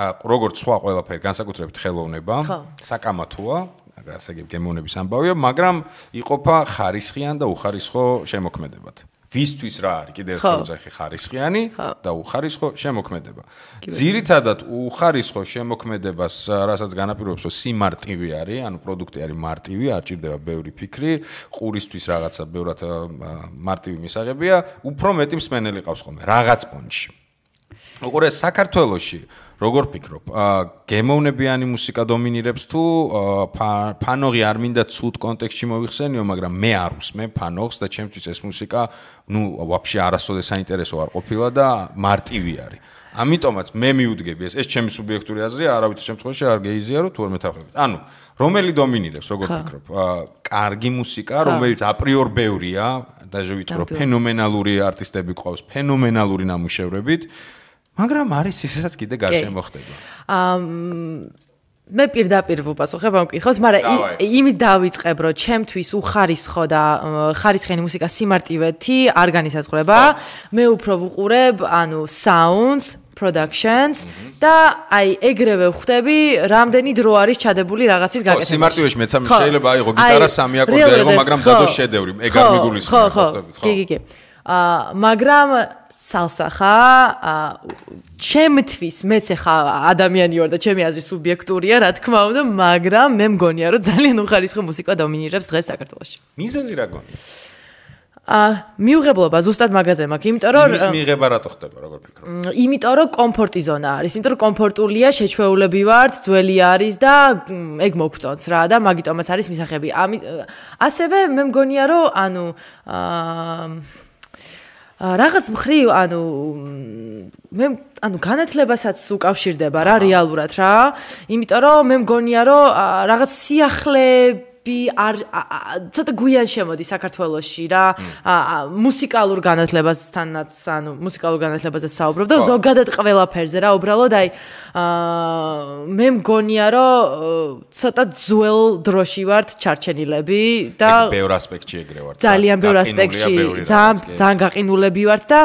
Speaker 2: როგორც სხვა ყველაფერი, განსაკუთრებით ხელოვნება, საკამათოა. ასე გემოვნების ამბავია, მაგრამ იყოფა ხარისხიან და უხარისხო შემოქმედებად. ვისთვის რა არის? კიდევ ერთხელ ვუძახი ხარისხიანი და უხარისხო შემოქმედება. ძირითადად უხარისხო შემოქმედებას, რასაც განაპირობებს, რომ სიმარტივი არის, ანუ პროდუქტი არის მარტივი, არ ჭირდება ბევრი ფიქრი, ყურისთვის რაღაცა ბევრად მარტივი მისაღებია, უფრო მეტი მსმენელი ყავს ხოლმე რაღაც პონჩში. უყურე საქართველოში როგორ ფიქრობ, გემოვნებიანი მუსიკა დომინირებს თუ ფანოღი არ მინდა ცუდ კონტექსტში მოიხსენიო, მაგრამ მე არ უსმენ ფანოღს და ჩემთვის ეს მუსიკა, ვაფშე არასოდეს საინტერესო არ ყოფილა და მარტივი არის. ამიტომაც მე მივუდგები ეს ჩემი სუბიექტური აზრია, არავითარ შემთხვევაში არ გეიზიარო თუ არ მეთანხმებით. ანუ რომელი დომინირებს, როგორ ფიქრობ? კარგი მუსიკა, რომელიც აპრიორ ბევრია, დაჟე ვიტყვი რომ ფენომენალური არტისტები ყავს, ფენომენალური ნამუშევრებით. მაგრამ არის ისაც კიდე გარშემო ხდება.
Speaker 3: მე პირდაპირ ვუპასუხებ ამ კითხვას, მაგრამ იმით დავიწყებ, რომ ჩემთვის უხარისხო და ხარისხიანი მუსიკა სიმარტივეთი არ განისაზღვრება. მე უფრო ვუყურებ, sounds, productions და ეგრევე ვხვდები, რამდენი დრო არის ჩადებული რაღაცის გაკეთებაში.
Speaker 2: სიმარტივეში მეც შეიძლება აიღო გიტარა 3 აკორდი აიღო, მაგრამ დადო შედევრი, ეგ არ მიგულისხმება, ხვდებით, ხო?
Speaker 3: კი. მაგრამ salsa ხა ჩემთვის მეც ხა ადამიანი ვარ და ჩემი აზრი სუბიექტურია, რა თქმა უნდა, მაგრამ მე მგონია, რომ ძალიან უხარისხო მუსიკა დომინირებს დღეს საქართველოში.
Speaker 2: მიზეზი რა გონია?
Speaker 3: მიუღებლობა ზუსტად მაგაზე მაქვს, იმიტომ რომ
Speaker 2: ის მიიღება რატო ხდება, როგორ ფიქრობ?
Speaker 3: იმიტომ რომ კომფორტი ზონა არის, იმიტომ რომ კომფორტულია, შეჩვეულები ვართ, ძველი არის და ეგ მოგწონს რა და მაგიტომაც არის მისაღები. ასევე მე მგონია, რომ რაღაც მხრივ, მე განათლებასაც უკავშირდება რა რეალურად რა. იმიტომ რომ მე მგონია, რომ რაღაც სიახლეები ცოტა გვიან შემოდი საქართველოში რა. მუსიკალურ განათლებასთანაც, მუსიკალურ განათლებაზე საუბრობ და ზოგადად ყველაფერზე რა, უბრალოდ მე მგონია, რომ ცოტა ძველ დროში ვართ ჩარჩენილები და
Speaker 2: ბევრ ასპექტში ეგრე ვართ.
Speaker 3: ძალიან ბევრ ასპექტში, ძალიან გაყინულები ვართ და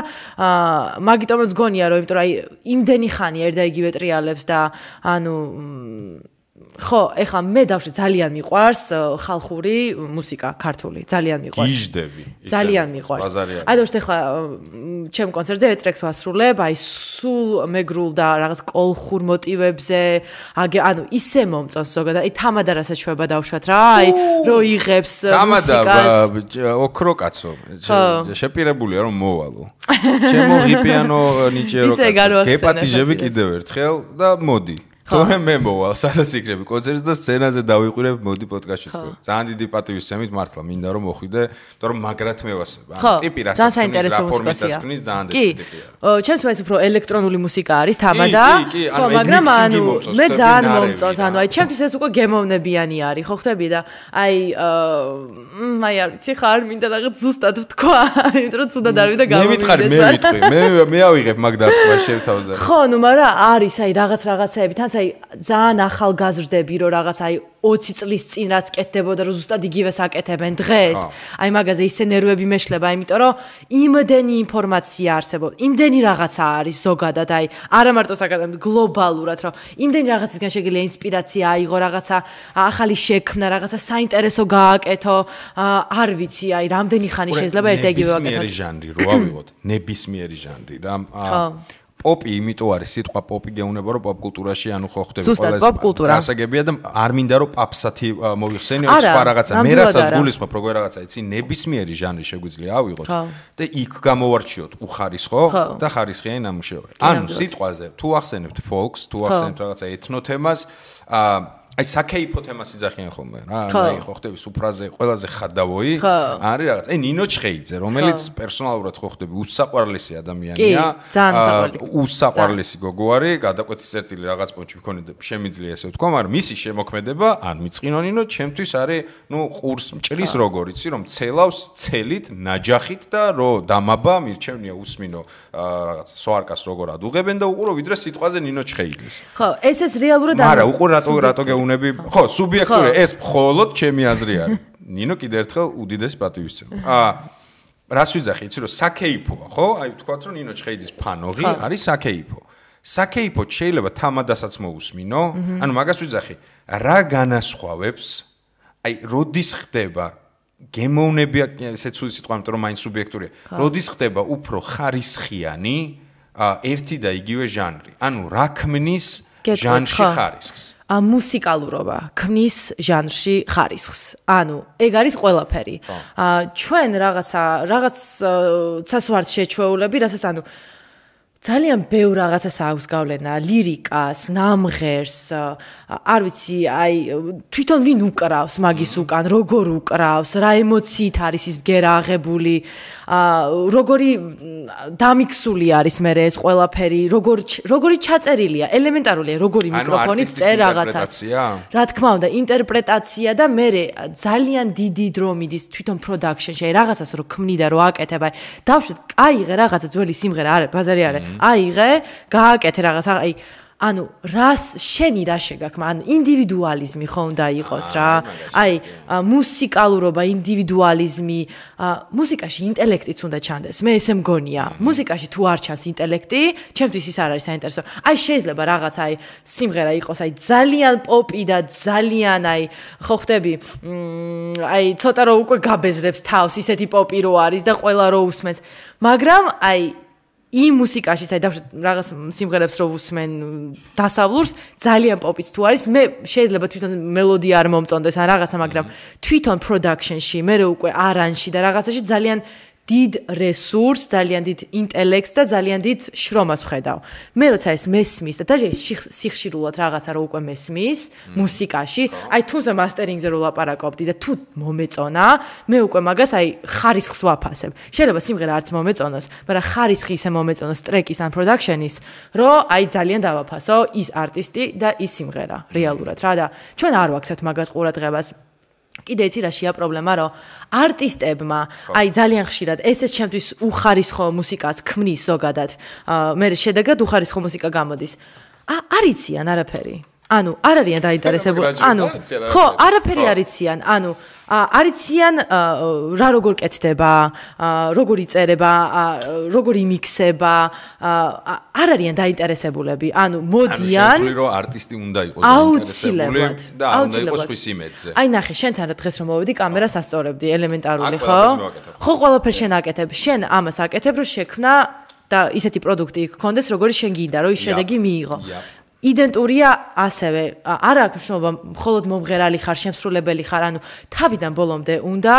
Speaker 3: მაგიტომაც გონია, რომ იმიტომ რომ იმდენი ხანი ერთ და იგივე ტრიალებს და ხო, ეხლა მე დავშე ძალიან მიყვარს ხალხური მუსიკა, ქართული, ძალიან მიყვარს.
Speaker 2: გიჟდები.
Speaker 3: ძალიან მიყვარს. დავშე ეხლა ჩემ კონცერტზე ეტრექს ვასრულებ, სულ მეგრულ და რაღაც კოლხურ მოტივებზე, ისე მომწონს ზოგადად, თამადა რასაც შვება დავშვათ რა, რო იღებს
Speaker 2: მუსიკას. თამადა ოქრო კაცო, შეპირებულია რომ მოვალო. ჩემო ღიპიანო ნიჭიერო კაცო. გეპატიჟები კიდევ ერთხელ და მოდი. თორე მე მოვალ სადაც იქნები კონცერტს და სცენაზე დავიყვირებ მოდი პოდკასტში თქვენ. ძალიან დიდი პატივისცემით მართლა მინდა რომ მოხვიდე, თორემ მაგრად მევასება. ტიპი რასაც ფორმისას ქნის ძალიან დიდი ტიპია.
Speaker 3: ჩემს მეც უფრო ელექტრონული მუსიკა არის თამადა. ხო, მაგრამ მე ძალიან მომწონს. ჩემთვის ეს უკვე გემოვნებიანი არის, ხო ხტები და არ ვიცი ხარ მინდა რაღაც ზუსტად ვთქვა, იმიტომ რომ ცუდად არ ვიდა გამომივიდეს.
Speaker 2: მე ავიღებ მაგ დათქვა შევთავაზე.
Speaker 3: ხო, მაგრამ არის რაღაცეები თან ძალიან ახალგაზრდები რომ რაღაც 20 წლის წინ რაც კეთდებოდა რომ ზუსტად იგივეს აკეთებენ დღეს. მაგაზე ისე ნერვები მეშლება, იმიტომ რომ იმდენი ინფორმაცია არსებობს, იმდენი რაღაცა არის ზოგადად, არა მარტო საკადემიო, გლობალურად, რომ იმდენი რაღაცისგან შეგიძლია ინსპირაცია აიღო, რაღაცა ახალი შექმნა, რაღაცა საინტერესო გააკეთო, არ ვიცი, რამდენი ხანი შეიძლება ერთ და იგივე ვაკეთოთ.
Speaker 2: ნებისმიერი ჟანრი რო ავიღოთ, ნებისმიერი ჟანრი რა. პოპი იმიტომ არის სიტყვა პოპი გეუნება რომ პოპ კულტურაში ხო ხდება
Speaker 3: ყველა ეს
Speaker 2: გასაგებია და არ მინდა რომ პაპსათი მოიხსენიო სხვა რაღაცა მე რასაც გულისხმობ როგორ რაღაცა იცი ნებისმიერი ჟანრი შეგვიძლია ავიღოთ და იქ გამოვარჩიოთ უხარისხო და ხარისხიანი ნამუშევარი ანუ სიტყვაზე თუ ახსენებთ ფოლკს თუ ახსენებთ რაღაცა ეთნო თემას საკეიფო თემას იძახიან ხოლმე რა ხო ხდები სუფრაზე ყველაზე ხადავოი არის რაღაც ნინო ჩხეიძე რომელიც პერსონალურად ხო ხდები უსაყვარლესი ადამიანია უსაყვარლესი გოგო არის გადაკვეთის წერტილი რაღაც პონჩი მქონდა შემიძლია ესე ვთქვა მაგრამ მისი შემოქმედება ან მიწყინო ნინო ჩემთვის არის ყურს მჭრის როგორ იცი რომ ცელავს ცელით ნაჯახით და რო დამაბა მირჩევნია უსმინო რაღაც სოარკას როგორ ადუღებენ და უყურო ვიდრე სიტყვაზე ნინო ჩხეიძეს
Speaker 3: ხო ეს რეალურად
Speaker 2: არა უყურო რატო ხო, სუბიექტური ეს მხოლოდ ჩემი აზრი არის. ნინო კიდე ერთხელ უდიდეს პატივისცემა. რას ვიძახი, იცი რომ საკეიფოა, ხო? ვთქვათ რომ ნინო ჩხეიძის ფანოღი არის საკეიფო. საკეიფო შეიძლება თამადასაც მოусმინო, ანუ მაგას ვიძახი, რა განასხვავებს? როდის ხდება გემოვნებია, ესეც უცი სიტყვა, იმიტომ რომ მაინც სუბიექტურია. როდის ხდება უფრო ხარისხიანი ერთი და იგივე ჟანრი. ანუ რა ქმნის ჟანრში ხარისხს?
Speaker 3: მუსიკალურობა ქმნის ჟანრში ხარისხს. ანუ ეგ არის ყველაფერი. ჩვენ რაღაცას ვართ შეჩვეულები, რასაც ძალიან ბევრ რაღაცას აქვს გავლენა, ლირიკას, ნამღერს, არ ვიცი, თვითონ ვინ უკრავს მაგის უკან, როგორ უკრავს, რა ემოციით არის ის ბგერა აღებული, როგორი დამიქსული არის მე ეს ყველაფერი, როგორი ჩაწერილია, ელემენტარულია, როგორი მიკროფონით წერ რაღაცას. რა თქმა უნდა, ინტერპრეტაცია და მე ძალიან დიდი დრო მიდის თვითონ პროდაქშენში, რაღაცას რო ქმნი და რო აკეთებ, დავშვეთ, აიღე რაღაცა ძველი სიმღერა, არა, ბაზარი არა. აიღე, გააკეთე რაღაცა, ანუ შენი რა შეგაქვს, ანუ ინდივიდუალიზმი ხო უნდა იყოს რა. აი, მუსიკალურობა, ინდივიდუალიზმი, მუსიკაში ინტელექტიც უნდა ჩანდეს. მე ესე მგონია. მუსიკაში თუ არ ჩანს ინტელექტი, ჩემთვის ის არ არის საინტერესო. აი, შეიძლება რაღაც აი სიმღერა იყოს აი ძალიან პოპი და ძალიან აი ხო ხდები, აი ცოტა რო უკვე გაბეზრებს თავს, ისეთი პოპი რო არის და ყველა რო უსმენს. მაგრამ აი იმ მუსიკაში საერთოდ რაღაც სიმღერებს რო უსმენ დასავლურს ძალიან პოპიც თუ არის მე შეიძლება თვითონ მელოდია არ მომწონდეს ან რაღაცა მაგრამ თვითონ პროდაქშენში მე უკვე არანჟში და რაღაცაში ძალიან დიდ რესურსს, ძალიან დიდ ინტელექტს და ძალიან დიდ შრომას ვხედავ. მე როცა ეს მესმის და დაჟე სიხშირულად რაღაცა რო უკვე მესმის მუსიკაში, აი თუმცა მასტერინგზე რო ლაპარაკობდი და თუ მომეწონა, მე უკვე მაგას აი ხარისხს ვაფასებ. შეიძლება სიმღერა არც მომეწონოს, მაგრამ ხარისხი ისე მომეწონოს ტრეკის ან პროდაქშენის, რომ აი ძალიან დავაფასო ის არტისტი და ის სიმღერა რეალურად რა და ჩვენ არ ვაქცევთ მაგას ყურადღებას. კიდე იცი რაშია პრობლემა, რომ არტისტებმა აი ძალიან ხშირად ეს ჩემთვის უხარისხო მუსიკას ქმნის ზოგადად. მე შედეგად უხარისხო მუსიკა გამოდის. არ იციან არაფერი. ანუ არ არიან დაინტერესებული. ანუ ხო, არაფერი არ იციან. ანუ არ იციან რა როგორ კეთდება, როგორ იწერება, როგორ იმიქსება, არ არიან დაინტერესებულები. ანუ მოდიან.
Speaker 2: ანუ შეიძლება რომ არტისტი უნდა იყოს დაინტერესებული და უნდა იყოს ხვის იმედზე.
Speaker 3: აი ნახე, შენთან რა დღეს რომ მოვედი, კამერას ასწორებდი, ელემენტარული ხო? ხო, ყველაფერს შენ აკეთებ. შენ ამას აკეთებ, რომ შექმნა და ისეთი პროდუქტი გქონდეს, როგორი შენ გინდა, რომ ის შედეგი მიიღო. იდენტურია ასევე არ აქვს მნიშვნელობა მხოლოდ მომღერალი ხარ, შემსრულებელი ხარ, ანუ თავიდან ბოლომდე უნდა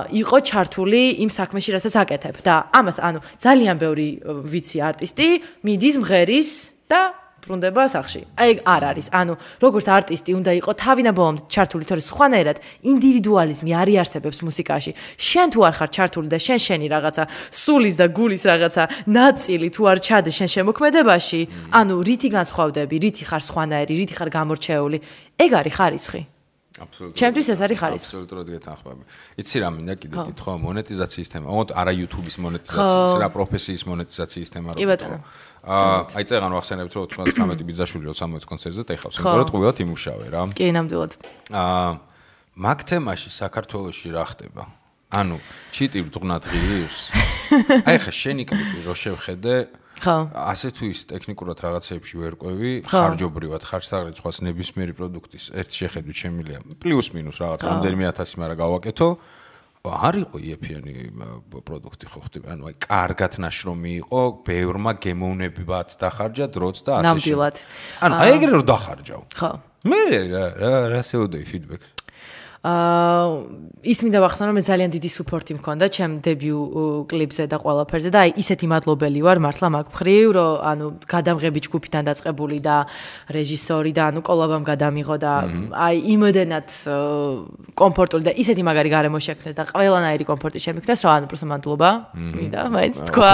Speaker 3: იყო ჩართული იმ საქმეში, რასაც აკეთებ და ამას ანუ ძალიან ბევრი ვიცი არტისტი მიდის მღერის და ბრუნდება სახში. აი არ არის. ანუ როგორც არტისტი უნდა იყო თავიდან ბოლომდე ჩართული, თორე სხვანაირად ინდივიდუალიზმი არ იარსებებს მუსიკაში. შენ თუ არ ხარ ჩართული და შენი რაღაცა სულის და გულის რაღაცა ნაწილი თუ არ ჩადე შენ შემოქმედებაში, ანუ რითი განსხვავდები, რითი ხარ სხვანაირი, რითი ხარ გამორჩეული, ეგ არის ხარისხი.
Speaker 2: აბსოლუტურად.
Speaker 3: ჩემთვის ეს არის ხარისხი.
Speaker 2: აბსოლუტურად გეთანხმები. იცი რა მინდა კიდე კითხვა, მონეტიზაციის თემა. ოღონდ არა YouTube-ის მონეტიზაციის, რა პროფესიის მონეტიზაციის თემა რა.
Speaker 3: კი ბატონო.
Speaker 2: აი წეგან ვახსენებთ რომ 99 ბიძაშვილი რო 60 კონცერტზე დაიხავს, იმიტომ რომ ტყუილად იმუშავე რა.
Speaker 3: კი, ნამდვილად.
Speaker 2: მაგ თემაში საქართველოში რა ხდება? ანუ ჩიტი ბრუნად ღირს? აი ხა შენი კლიპი რო შევხედე,
Speaker 3: ხო.
Speaker 2: ასე თუ ის ტექნიკურად რაღაცეებში ვერ ყვევი, ხარჯობრივად ხარჯსაღრით სხვას ნებისმიერი პროდუქტის ერთ შეხედვით შემილია პლუს მინუს რაღაც რამდენიმე 1000 მაგრამ გავაკეთო. არ იყო იეფიანი პროდუქტი ხო ხდება. ანუ აი კარგად ნაშრომი იყო, ბევრმა გემოვნებებაც დახარჯა დროც და ასე შემდეგ.
Speaker 3: ნამდვილად.
Speaker 2: ანუ აი ეგრე რომ დახარჯავ. ხო. მე რა შეუდეი ფიდბექს.
Speaker 3: ის მინდა ვახსენო, მე ძალიან დიდი სუპორტი მქონდა ჩემ დებიუ კლიპზე და ყველაფერზე და აი ისეთი მადლობელი ვარ მართლა მაგ მხრივ, რომ ანუ გადამღები ჯგუფიდან დაწყებული და რეჟისორი და ანუ კოლაბამ გადამიღო და აი იმოდენად კომფორტული და ისეთი მაგარი გარემო შექმნეს და ყველანაირი კომფორტი შემიქნეს, რომ ანუ პროსტა მადლობა მინდა მაინც თქვა.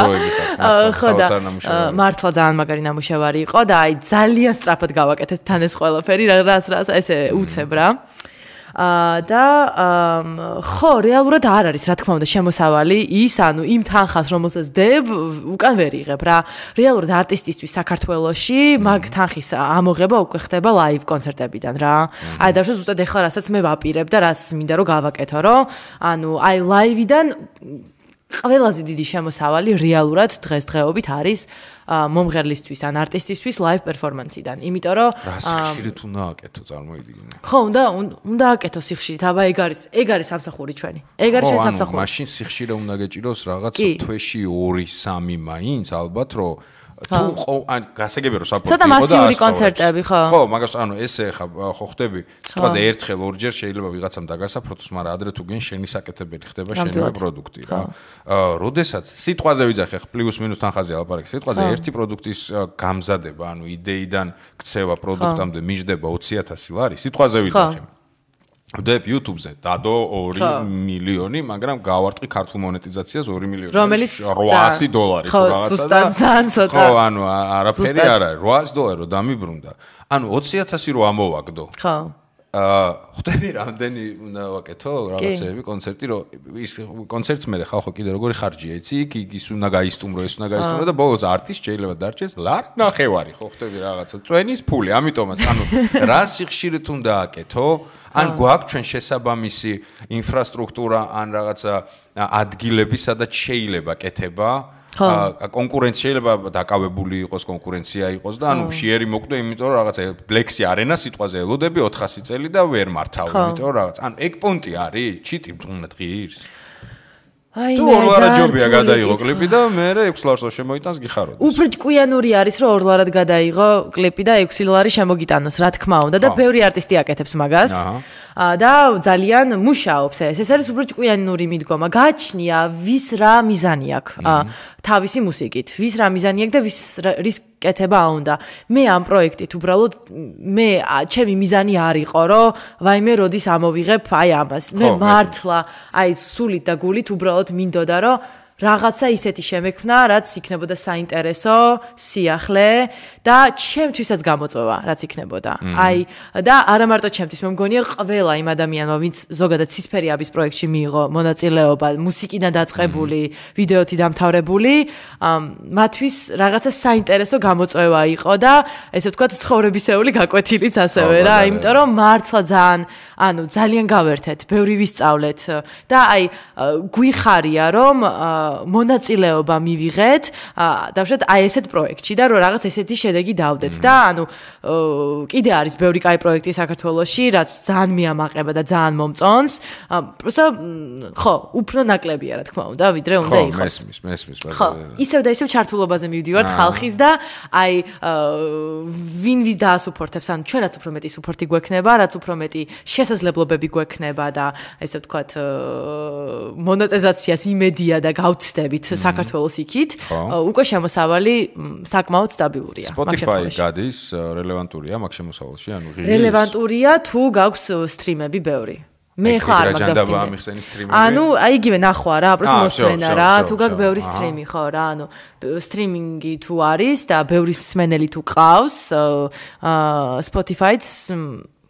Speaker 3: ხო და მართლა ძალიან მაგარი ნამუშევარი იყო და აი ძალიან სწრაფად გავაკეთეთ თან ეს ყველაფერი, რაც ესე უცებ რა. და ხო რეალურად არ არის რა თქმა უნდა შემოსავალი ის ანუ იმ თანხას რომელსაც დებ უკან ვერ იღებ რა რეალურად არტისტისთვის საქართველოში მაგ თანხის ამოღება უკვე ხდება ლაივ კონცერტებიდან რა აი დავშვა ზუსტად ეხლა რასაც მე ვაპირებ და რაც მინდა რომ გავაკეთო რომ ანუ აი ლაივიდან ყველაზე დიდი შემოსავალი რეალურად დღესდღეობით არის მომღერლისთვის ან არტისტისთვის ლაივ პერფორმანსიდან. იმიტომ რომ
Speaker 2: სიხშირით უნდა აკეთო წარმოიდგინე.
Speaker 3: ხო, უნდა აკეთო სიხშირით. აბა ეგ არის სამსახური ჩვენი. ეგ არის ჩვენი სამსახური.
Speaker 2: მაშინ სიხშირე უნდა გეჭიროს რაღაც თვეში 2-3 მაინც ალბათ რომ თუ ან გასაგებია რომ საპორტი იყო და
Speaker 3: ცოტა მასიური კონცერტები ხო?
Speaker 2: ხო, მაგას ანუ ესე ხა ხო ხდები სიტყვაზე ერთხელ ორჯერ შეიძლება ვიღაცამ დაგასაფროთოს, მაგრამ ადრე თუ გენ შენი საკეთებელი ხდება შენივე პროდუქტი რა. როდესაც სიტყვაზე ვიძახე ხ პლუს მინუს თანხაზე ალაპარაკი სიტყვაზე ერთი პროდუქტის გამზადება, ანუ იდეიდან ქცევა პროდუქტამდე მიჯდება 20000 ლარი, სიტყვაზე ვიძახე. ვდებ YouTube-ზე დადო 2 მილიონი, მაგრამ გავარტყი ქართულ მონეტიზაციას 2 მილიონი.
Speaker 3: რომელიც
Speaker 2: $800 თუ რაღაცა და
Speaker 3: ხო, ზუსტად ძალიან ცოტა.
Speaker 2: ხო, ანუ არაფერი არ არის. $800 რომ დამიბრუნდა. ანუ 20000 რო ამოვაგდო.
Speaker 3: ხო.
Speaker 2: ხვდები რამდენი უნდა ვაკეთო რაღაცეები კონცერტი რომ ის კონცერტს მე ხალხო კიდე როგორი ხარჯია იცი იქ ის უნდა გაისტუმრო და ბოლოს არტის შეიძლება დარჩეს ლარ ნახევარი ხო ხვდები რაღაცა წვენის ფული ამიტომაც ანუ რა სიხშირით უნდა აკეთო ან გვაქვს ჩვენ შესაბამისი ინფრასტრუქტურა ან რაღაცა ადგილები სადაც შეიძლება კეთება კონკურენცია შეიძლება დაკავებული იყოს კონკურენცია იყოს და ანუ შეერი მოკვდე იმიტომ რომ რაღაცა ბლექსი არენა სიტყვაზე ელოდები 400 წელი და ვერ მართავ იმიტომ რომ რაღაც ანუ ეგ პონტი არის ჩიტი დღის
Speaker 3: აი
Speaker 2: თუ ორლარა ჯობია გადაიღო კლიპი და მე 6 ლარს შემოიტანს გიხაროთ.
Speaker 3: უფრო ჭკვიანური არის რომ ორლარად გადაიღო კლიპი და 6 ლარი შემოგიტანოს, რა თქმა უნდა და ბევრი არტისტი აკეთებს მაგას. და ძალიან მუშაობს ეს. ეს არის უფრო ჭკვიანური მიდგომა. გააჩნია ვის რა მიზანი აქვს თავისი მუსიკით. ვის რა მიზანი აქვს და რის კეთება უნდა. მე ამ პროექტით უბრალოდ ჩემი მიზანი არ იყო რომ ვაიმე როდის ამოვიღებ აი ამას. მე მართლა აი სულით და გულით უბრალოდ მინდოდა რომ რაღაცა ისეთი შემექმნა, რაც იქნებოდა საინტერესო, სიახლე და ჩემთვისაც გამოწვევა, რაც იქნებოდა. აი და არა მარტო ჩემთვის, მე მგონია ყველა იმ ადამიანმა, ვინც ზოგადად ცისფერიაბის პროექტში მიიღო მონაწილეობა, მუსიკიდან დაწყებული, ვიდეოთი დამთავრებული, მათთვის რაღაცა საინტერესო გამოწვევა იყო და ესე ვთქვათ, ცხოვრებისეული გაკვეთილიც ასევე რა, იმიტომ რომ მართლა ძალიან გავერთეთ, ბევრი ვისწავლეთ და აი გვიხარია რომ მონაწილეობა მივიღეთ დავშვათ აი ესეთ პროექტში და რომ რაღაც ესეთი შედეგი დავდეთ და ანუ კიდე არის ბევრი კაი პროექტი საქართველოში რაც ძალიან მიამაყება და ძალიან მომწონს პროსტო ხო უფრო ნაკლებია რა თქმა უნდა ვიდრე უნდა იყოს
Speaker 2: მესმის
Speaker 3: ხო ისევ და ისევ ჩართულობაზე მივდივართ ხალხის და აი ვინ ვის დაასუპორტებს ანუ ჩვენ რაც უფრო მეტი სუპორტი გვექნება რაც უფრო მეტი შესაძლებლობები გვექნება და ესე ვთქვათ მონეტიზაციას იმედია და გავცდებით საქართველოს იქით უკვე შემოსავალი საკმაოდ სტაბილურია
Speaker 2: Spotify გადის რელევანტურია მაგ შემოსავალში ანუ
Speaker 3: რელევანტურია თუ გაქვს სტრიმები ბევრი მე ხარ მაგას ანუ აი იგივე ნახვა რა просто მოსმენა რა თუ გაქვს ბევრი სტრიმი ხო რა ანუ სტრიმინგი თუ არის და ბევრი მსმენელი თუ ყავს Spotify-ს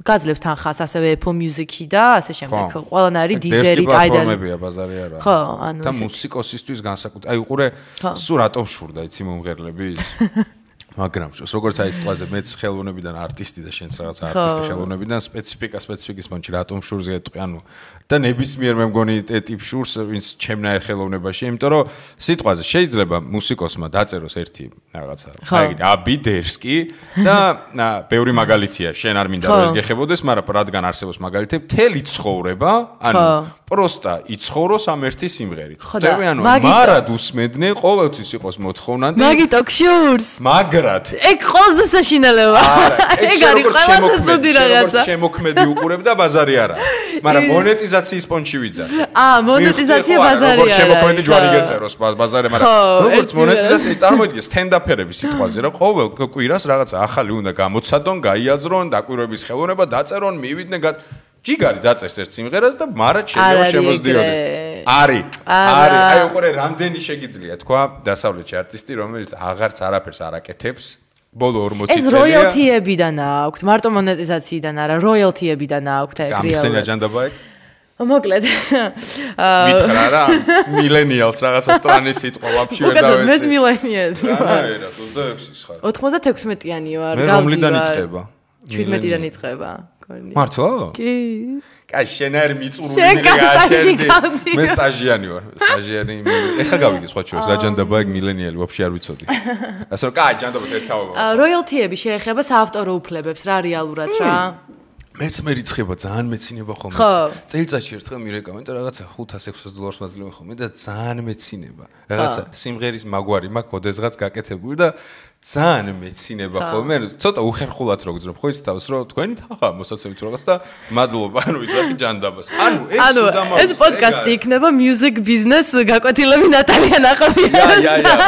Speaker 3: გაძლევს თანხას ასევე Apple Music-ი და ასე შემდეგ. ყველანაირი Deezer-ი,
Speaker 2: პლატფორმებია ბაზარი არა.
Speaker 3: ხო, ანუ
Speaker 2: და მუსიკოსისთვის განსაკუთრებით. აი უყურე სულ რატომ შურდა იცი მომღერლები ის. მაგრამ როგორც აი სიტყვაზე მეც ხელოვნებიდან არტისტი და შენც რაღაც არტისტი ხელოვნებიდან სპეციფიკის მომჩი რატომ შურს გეტყვი ანუ და ნებისმიერ მე მგონი ტიპ შურს ვინც ჩემნაირ ხელოვნებაში იმიტომ რომ სიტყვაზე შეიძლება მუსიკოსმა დაწეროს ერთი რაღაცა აი აბიდერსკი და ბევრი მაგალითია შენ არ მინდა რომ ეს გეხებოდეს მაგრამ რადგან არსებობს მაგალითები მთელი ცხოვრება ანუ პროსტა იცხოვროს ამ ერთი სიმღერით ხდები ანუ მარად უსმენდნენ ყოველთვის იყოს მოთხოვნადი
Speaker 3: მაგი ტოქშურს
Speaker 2: ეგ
Speaker 3: ყველაზე საშინელება. ეგ არის ყველაზე ზოდი რაღაცა.
Speaker 2: შემოქმედი უყურებ და ბაზარი არა. მაგრამ მონეტიზაციის პონჩი ვიძარ.
Speaker 3: მონეტიზაცია ბაზარი არა.
Speaker 2: შემოქმედი ჯვარი გეწეროს ბაზარი, მაგრამ როგორც მონეტიზაცია წარმოიდგე სტენდაფერების სიტყვაზე, რომ ყოველ კვირას რაღაცა ახალი უნდა გამოცადონ, გაიაზრონ, დაკვირვების ხელოვნება დაწერონ, მივიდნენ ჯიგარი დაწერს ერთ სიმღერას და მარად შეიძლება შემოძდიოდეს. არის. აი უყურე რამდენი შეგიძლია თქვა დასავლეთში არტისტი რომელიც აღარც არაფერს არ აკეთებს ბოლო 40 წელია.
Speaker 3: ეს როიალთიებიდან აქვთ, მარტო მონეტიზაციიდან არა, როიალთიებიდან აქვთ ეგ რეალურად.
Speaker 2: გამიხსენია ჯანდაბა ეგ?
Speaker 3: მოკლედ.
Speaker 2: მითხრა რა, მილენიალს რაღაცა სტრანის სიტყვა ვაფშე ვერ დავეცე.
Speaker 3: მოკლედ მე მილენიალი ვარ.
Speaker 2: რა, 26-ის ხარ.
Speaker 3: 96-იანი ვარ,
Speaker 2: გავდი. მე რომლიდან იწყება?
Speaker 3: 17-დან იწყება.
Speaker 2: მართლა?
Speaker 3: კი.
Speaker 2: კაი, შენაერ მიწურული მიგაშენდი. მე სტაჟიანი ვარ. სტაჟიანი. ეხა გავიგე სხვა შორის, რა ჯანდაბა ეგ მილენიალი ვაფშე არ ვიცოდი. ასე რომ კაი, ჯანდაბას ერთაობა.
Speaker 3: როიალთიები შეეხება საავტორო უფლებებს რა რეალურად რა.
Speaker 2: მეც მე რიცხება ძალიან მეცინება ხოლმე. წელიწადში ერთხელ მირეკავენ და რაღაცა 500-600 დოლარს მაძლევენ ხოლმე და ძალიან მეცინება. რაღაცა სიმღერის მაგვარი მაქვს, ოდესღაც გაკეთებული და ძალიან მეცინება ხოლმე. ცოტა უხერხულად რო გძნობ ხო იცი თავს რომ თქვენი თანხა მოსაცემით რაღაც და მადლობა ანუ ვიზახი ჯანდაბას. ანუ
Speaker 3: ეს პოდკასტი იქნება music business გაკვეთილები ნატალია ნაყოფიას.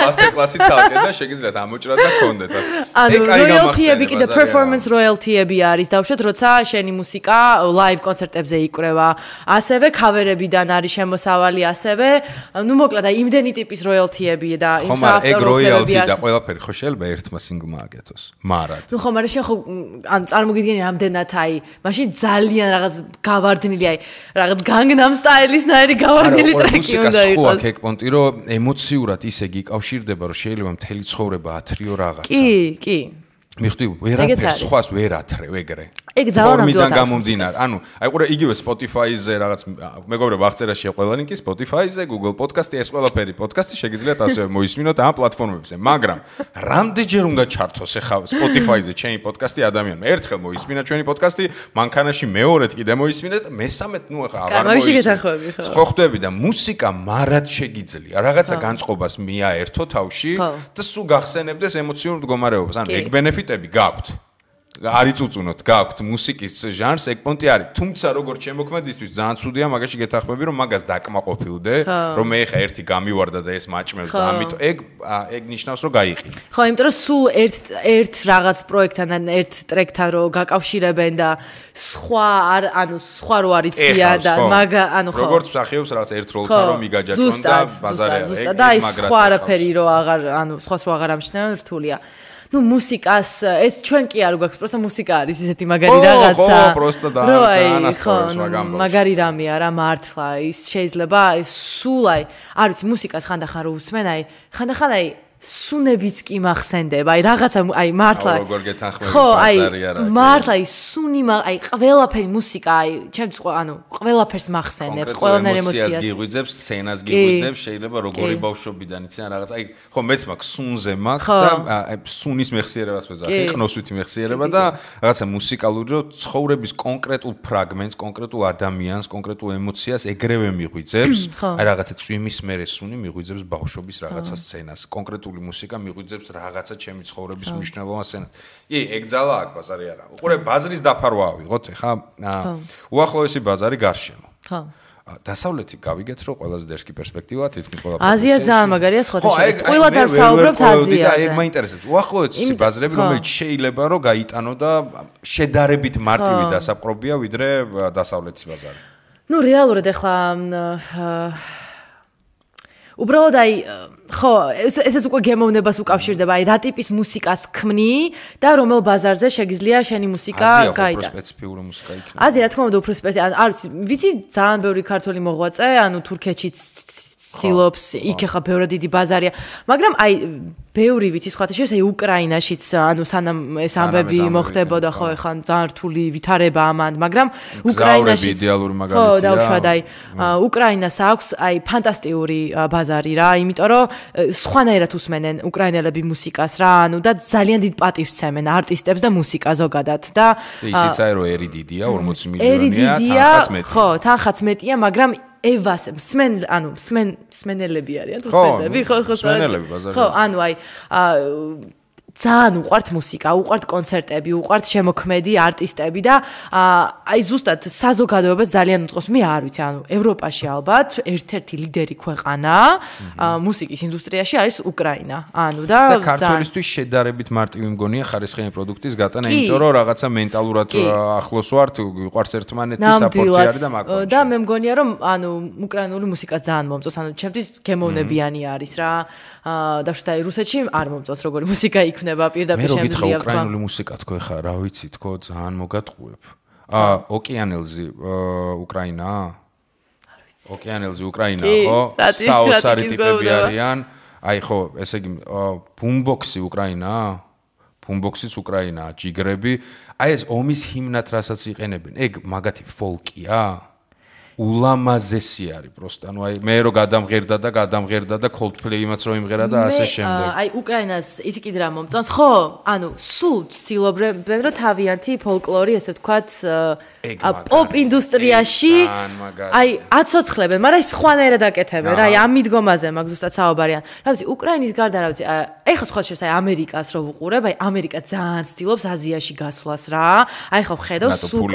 Speaker 2: master class-ი წავიდე და შეგიძლიათ ამოჭრათ და გქონდეთ.
Speaker 3: ანუ royalty-ები კიდე performance royalty-ები არის დავუშვათ როცა შენი მუსიკა live კონცერტებზე იკვრევა. ასევე cover-ებიდან არის შემოსავალი ასევე. ნუ მოკლედ აი იმდენი ტიპის royalty-ები და იმ საავტორო უფლებები
Speaker 2: და ყველაფერი ხო შეიძლება შეიძლება ერთმა სინგლმა აკეთოს. მარად.
Speaker 3: ნუ ხო, მაგრამ შენ ხო ანუ წარმოგიდგენი რამდენად აი, მაშინ ძალიან რაღაც გავარდნილი აი, რაღაც განგნამ სტაილისნაირი გავარდნილი ტრეკი უნდა იყოს.
Speaker 2: ხო, აქ პონტი რომ ემოციურად ისე გიკავშირდება, რომ შეიძლება მთელი ცხოვრება ათრიო რაღაცა.
Speaker 3: კი.
Speaker 2: მიხდი, ვერაფერს სხვას ვერ ათრევ ეგრე.
Speaker 3: ეგ ძალიან
Speaker 2: ნამდვილად გამომდინარე. ანუ, აი ყურე იგივე Spotify-ზე რაღაც მეგობრებო აღწერაში ყველა ლინკი Spotify-ზე, Google Podcast-ი, ეს ყველაფერი პოდკასტი შეგიძლიათ ასევე მოისმინოთ ამ პლატფორმებზე. მაგრამ რამდენჯერ უნდა ჩართოს ახლა Spotify-ზე ჩემი პოდკასტი ადამიანმა? ერთხელ მოისმინა ჩვენი პოდკასტი, მანქანაში მეორედ კიდე მოისმინეთ, მესამედ ნუ ახლა აღარ
Speaker 3: მოისმინეთ.
Speaker 2: ხო ხვდები და მუსიკა მარად შეგიძლია. რაღაცა განწყობას მიაერთო თავში და სულ გახსენებდეს ემოციურ მდგომარეობას. ანუ ეგ ბენეფიტები გაქვთ. არ იწუწუნოთ, გაქვთ მუსიკის ჟანრს, ეგ პონტი არის. თუმცა როგორც შემოქმედისთვის ძალიან ცუდია მაგაში გეთახმები, რომ მაგას დაკმაყოფილდე, რომ მე ხა ერთი გამივარდა და ეს მაჭმევს და ამიტომ ეგ ნიშნავს, რომ გაიყინე.
Speaker 3: ხო, იმიტომ რომ სულ ერთ რაღაც პროექტთან ან ერთ ტრეკთან რო გაკავშირებენ და სხვა რო არიციან და ანუ ხო.
Speaker 2: როგორც მსახიობს რაღაც ერთ როლთან რომ მიგაჯაჭონ და ბაზარია.
Speaker 3: ზუსტად და სხვა არაფერი რო აღარ სხვას რო აღარ ამჩნევენ რთულია. ნუ მუსიკას ეს ჩვენ კი არ გვაქვს, პროსტა მუსიკა არის ისეთი მაგარი რაღაცა.
Speaker 2: ხო, პროსტა და ძალიან ასწორებს მაგამ.
Speaker 3: მაგარი რამეა რა მართლა, ის შეიძლება სულ აი, არ ვიცი, მუსიკას ხანდახან რო უსმენ, აი, ხანდახან აი სუნებიც კი მახსენდება, აი რაღაცა აი მართლა.
Speaker 2: როგორ გეთანხმები
Speaker 3: ბაზარია რა. მართლა აი სუნი აი ყველაფერი მუსიკა აი ჩემს ყველაფერს მახსენებს, ყველანაირ ემოციას.
Speaker 2: გიღვიძებს, სცენას გიღვიძებს, შეიძლება როგორი ბავშვობიდან იციან რაღაც აი ხო მეც მაქვს სუნზე მაქვს და აი სუნის მეხსიერებას ვეძახი, ხნოსვითი მეხსიერება და რაღაცა მუსიკალური რო ცხოვრების კონკრეტულ ფრაგმენტს, კონკრეტულ ადამიანს, კონკრეტულ ემოციას ეგრევე მიღვიძებს. აი რაღაცა წვიმის მერე სუნი მიღვიძებს ბავშვობის რაღაცა სცენას, კონკრეტულ მუსიკა მიღვიძებს რაღაცა ჩემი ცხოვრების მნიშვნელოვან სცენას. ეგ ძალა აქვს ბაზარი არა. უყურე ბაზრის დაფარვა ავიღოთ ხა. უახლოესი ბაზარი გარშემო.
Speaker 3: ხო.
Speaker 2: დასავლეთი გავიგეთ რომ ყველაზე დერსკი პერსპექტივა თითქმის ყველა
Speaker 3: აზია ძალიან მაგარია სხვათა შორის. ყველა დავსაუბრობთ აზიაზე.
Speaker 2: ეგ მაინტერესებს. უახლოესი ბაზრები რომელიც შეიძლება რომ გაიტანო და შედარებით მარტივი დასაპყრობია ვიდრე დასავლეთის ბაზარი.
Speaker 3: ნუ რეალურად ახლა უბრალოდ აი ხო ესეც უკვე გემოვნებას უკავშირდება აი რა ტიპის მუსიკას ქმნი და რომელ ბაზარზე შეგიძლია შენი მუსიკა გაიტანა.
Speaker 2: აზია უფრო სპეციფიური მუსიკა იქნება.
Speaker 3: აზია რა თქმა უნდა უფრო სპეციფიკური არ ვიცი ძალიან ბევრი ქართული მოღვაწე ანუ თურქეთშიც ცდილობს იქ ახლა ბევრი დიდი ბაზარია მაგრამ აი ბევრი ვიცი სხვათა შორის აი უკრაინაშიც ანუ სანამ ეს ამბები მოხდებოდა ხო ახლა ძალიან რთული ვითარება ამან მაგრამ უკრაინაშიც
Speaker 2: იდეალური მაგალითია
Speaker 3: ხო დავშვად აი უკრაინას აქვს აი ფანტასტიკური ბაზარი რა იმიტომ რომ სხვანაირად უსმენენ უკრაინელები მუსიკას რა ანუ და ძალიან დიდ პატივს სცემენ არტისტებს და მუსიკა ზოგადად და
Speaker 2: ისიც აი რომ ერი დიდია 40 მილიონია თანხაც მეტია
Speaker 3: ხო თანხაც მეტია მაგრამ ევას მსმენელები არიან თუ მსმენელები ხო
Speaker 2: მსმენელები ბაზარი
Speaker 3: ხო ანუ აი ძალიან უყვართ მუსიკა, უყვართ კონცერტები, უყვართ შემოქმედი არტისტები და აი ზუსტად საზოგადოებას ძალიან უწყობს. მე არ ვიცი, ანუ ევროპაში ალბათ ერთ-ერთი ლიდერი ქვეყანა მუსიკის ინდუსტრიაში არის უკრაინა. ანუ და
Speaker 2: ქართველისთვის შედარებით მარტივი მგონია ხარისხიანი პროდუქტის გატანა, იმიტომ რომ რაღაცა მენტალურად ახლოს ვართ, ვიყვარს ერთმანეთი, საპორტი არის და მაგალითად.
Speaker 3: და მე მგონია რომ ანუ უკრაინული მუსიკა ძალიან მომწონს, ანუ ჩემთვის გემოვნებიანი არის რა. და რუსეთში არ მომწონს როგორი მუსიკა იქნება პირდაპირ შემიძლია
Speaker 2: თქვა. მე რო გითხრა უკრაინული მუსიკა თქო ხა, რა ვიცი თქო, ძალიან მოგატყუებ. ოკეანელზი უკრაინა? არ ვიცი. ოკეანელზი უკრაინა, ხო? საოცარი ტიპები არიან. აი ხო, ესე იგი ბუმბოქსი უკრაინა? ბუმბოქსიც უკრაინაა, ჯიგრები. აი ეს ომის ჰიმნად რასაც იყენებენ, ეგ მაგათი ფოლკია? ულამაზესი არის პროსტა. ანუ აი მე რო გადამღერდა და Coldplay-იმაც რო იმღერა და ასე შემდეგ.
Speaker 3: აი უკრაინას ისი კიდე რა მომწონს? ხო, ანუ სულ ცდილობენ რომ თავიანთი ფოლკლორი, ესე ვთქვათ, პოპ ინდუსტრიაში აი აცოცხლებენ, მაგრამ ის სხვანაირად აკეთებენ რა, აი ამ მიდგომაზე მაგ ზუსტად საუბარიან. რა ვიცი, უკრაინის გარდა რა ვიცი, ეხლა სხვა შეიძლება აი ამერიკას რო ვუყურებ, აი ამერიკა ძალიან ცდილობს აზიაში გასვლას რა. აი ხო ხედავ სულ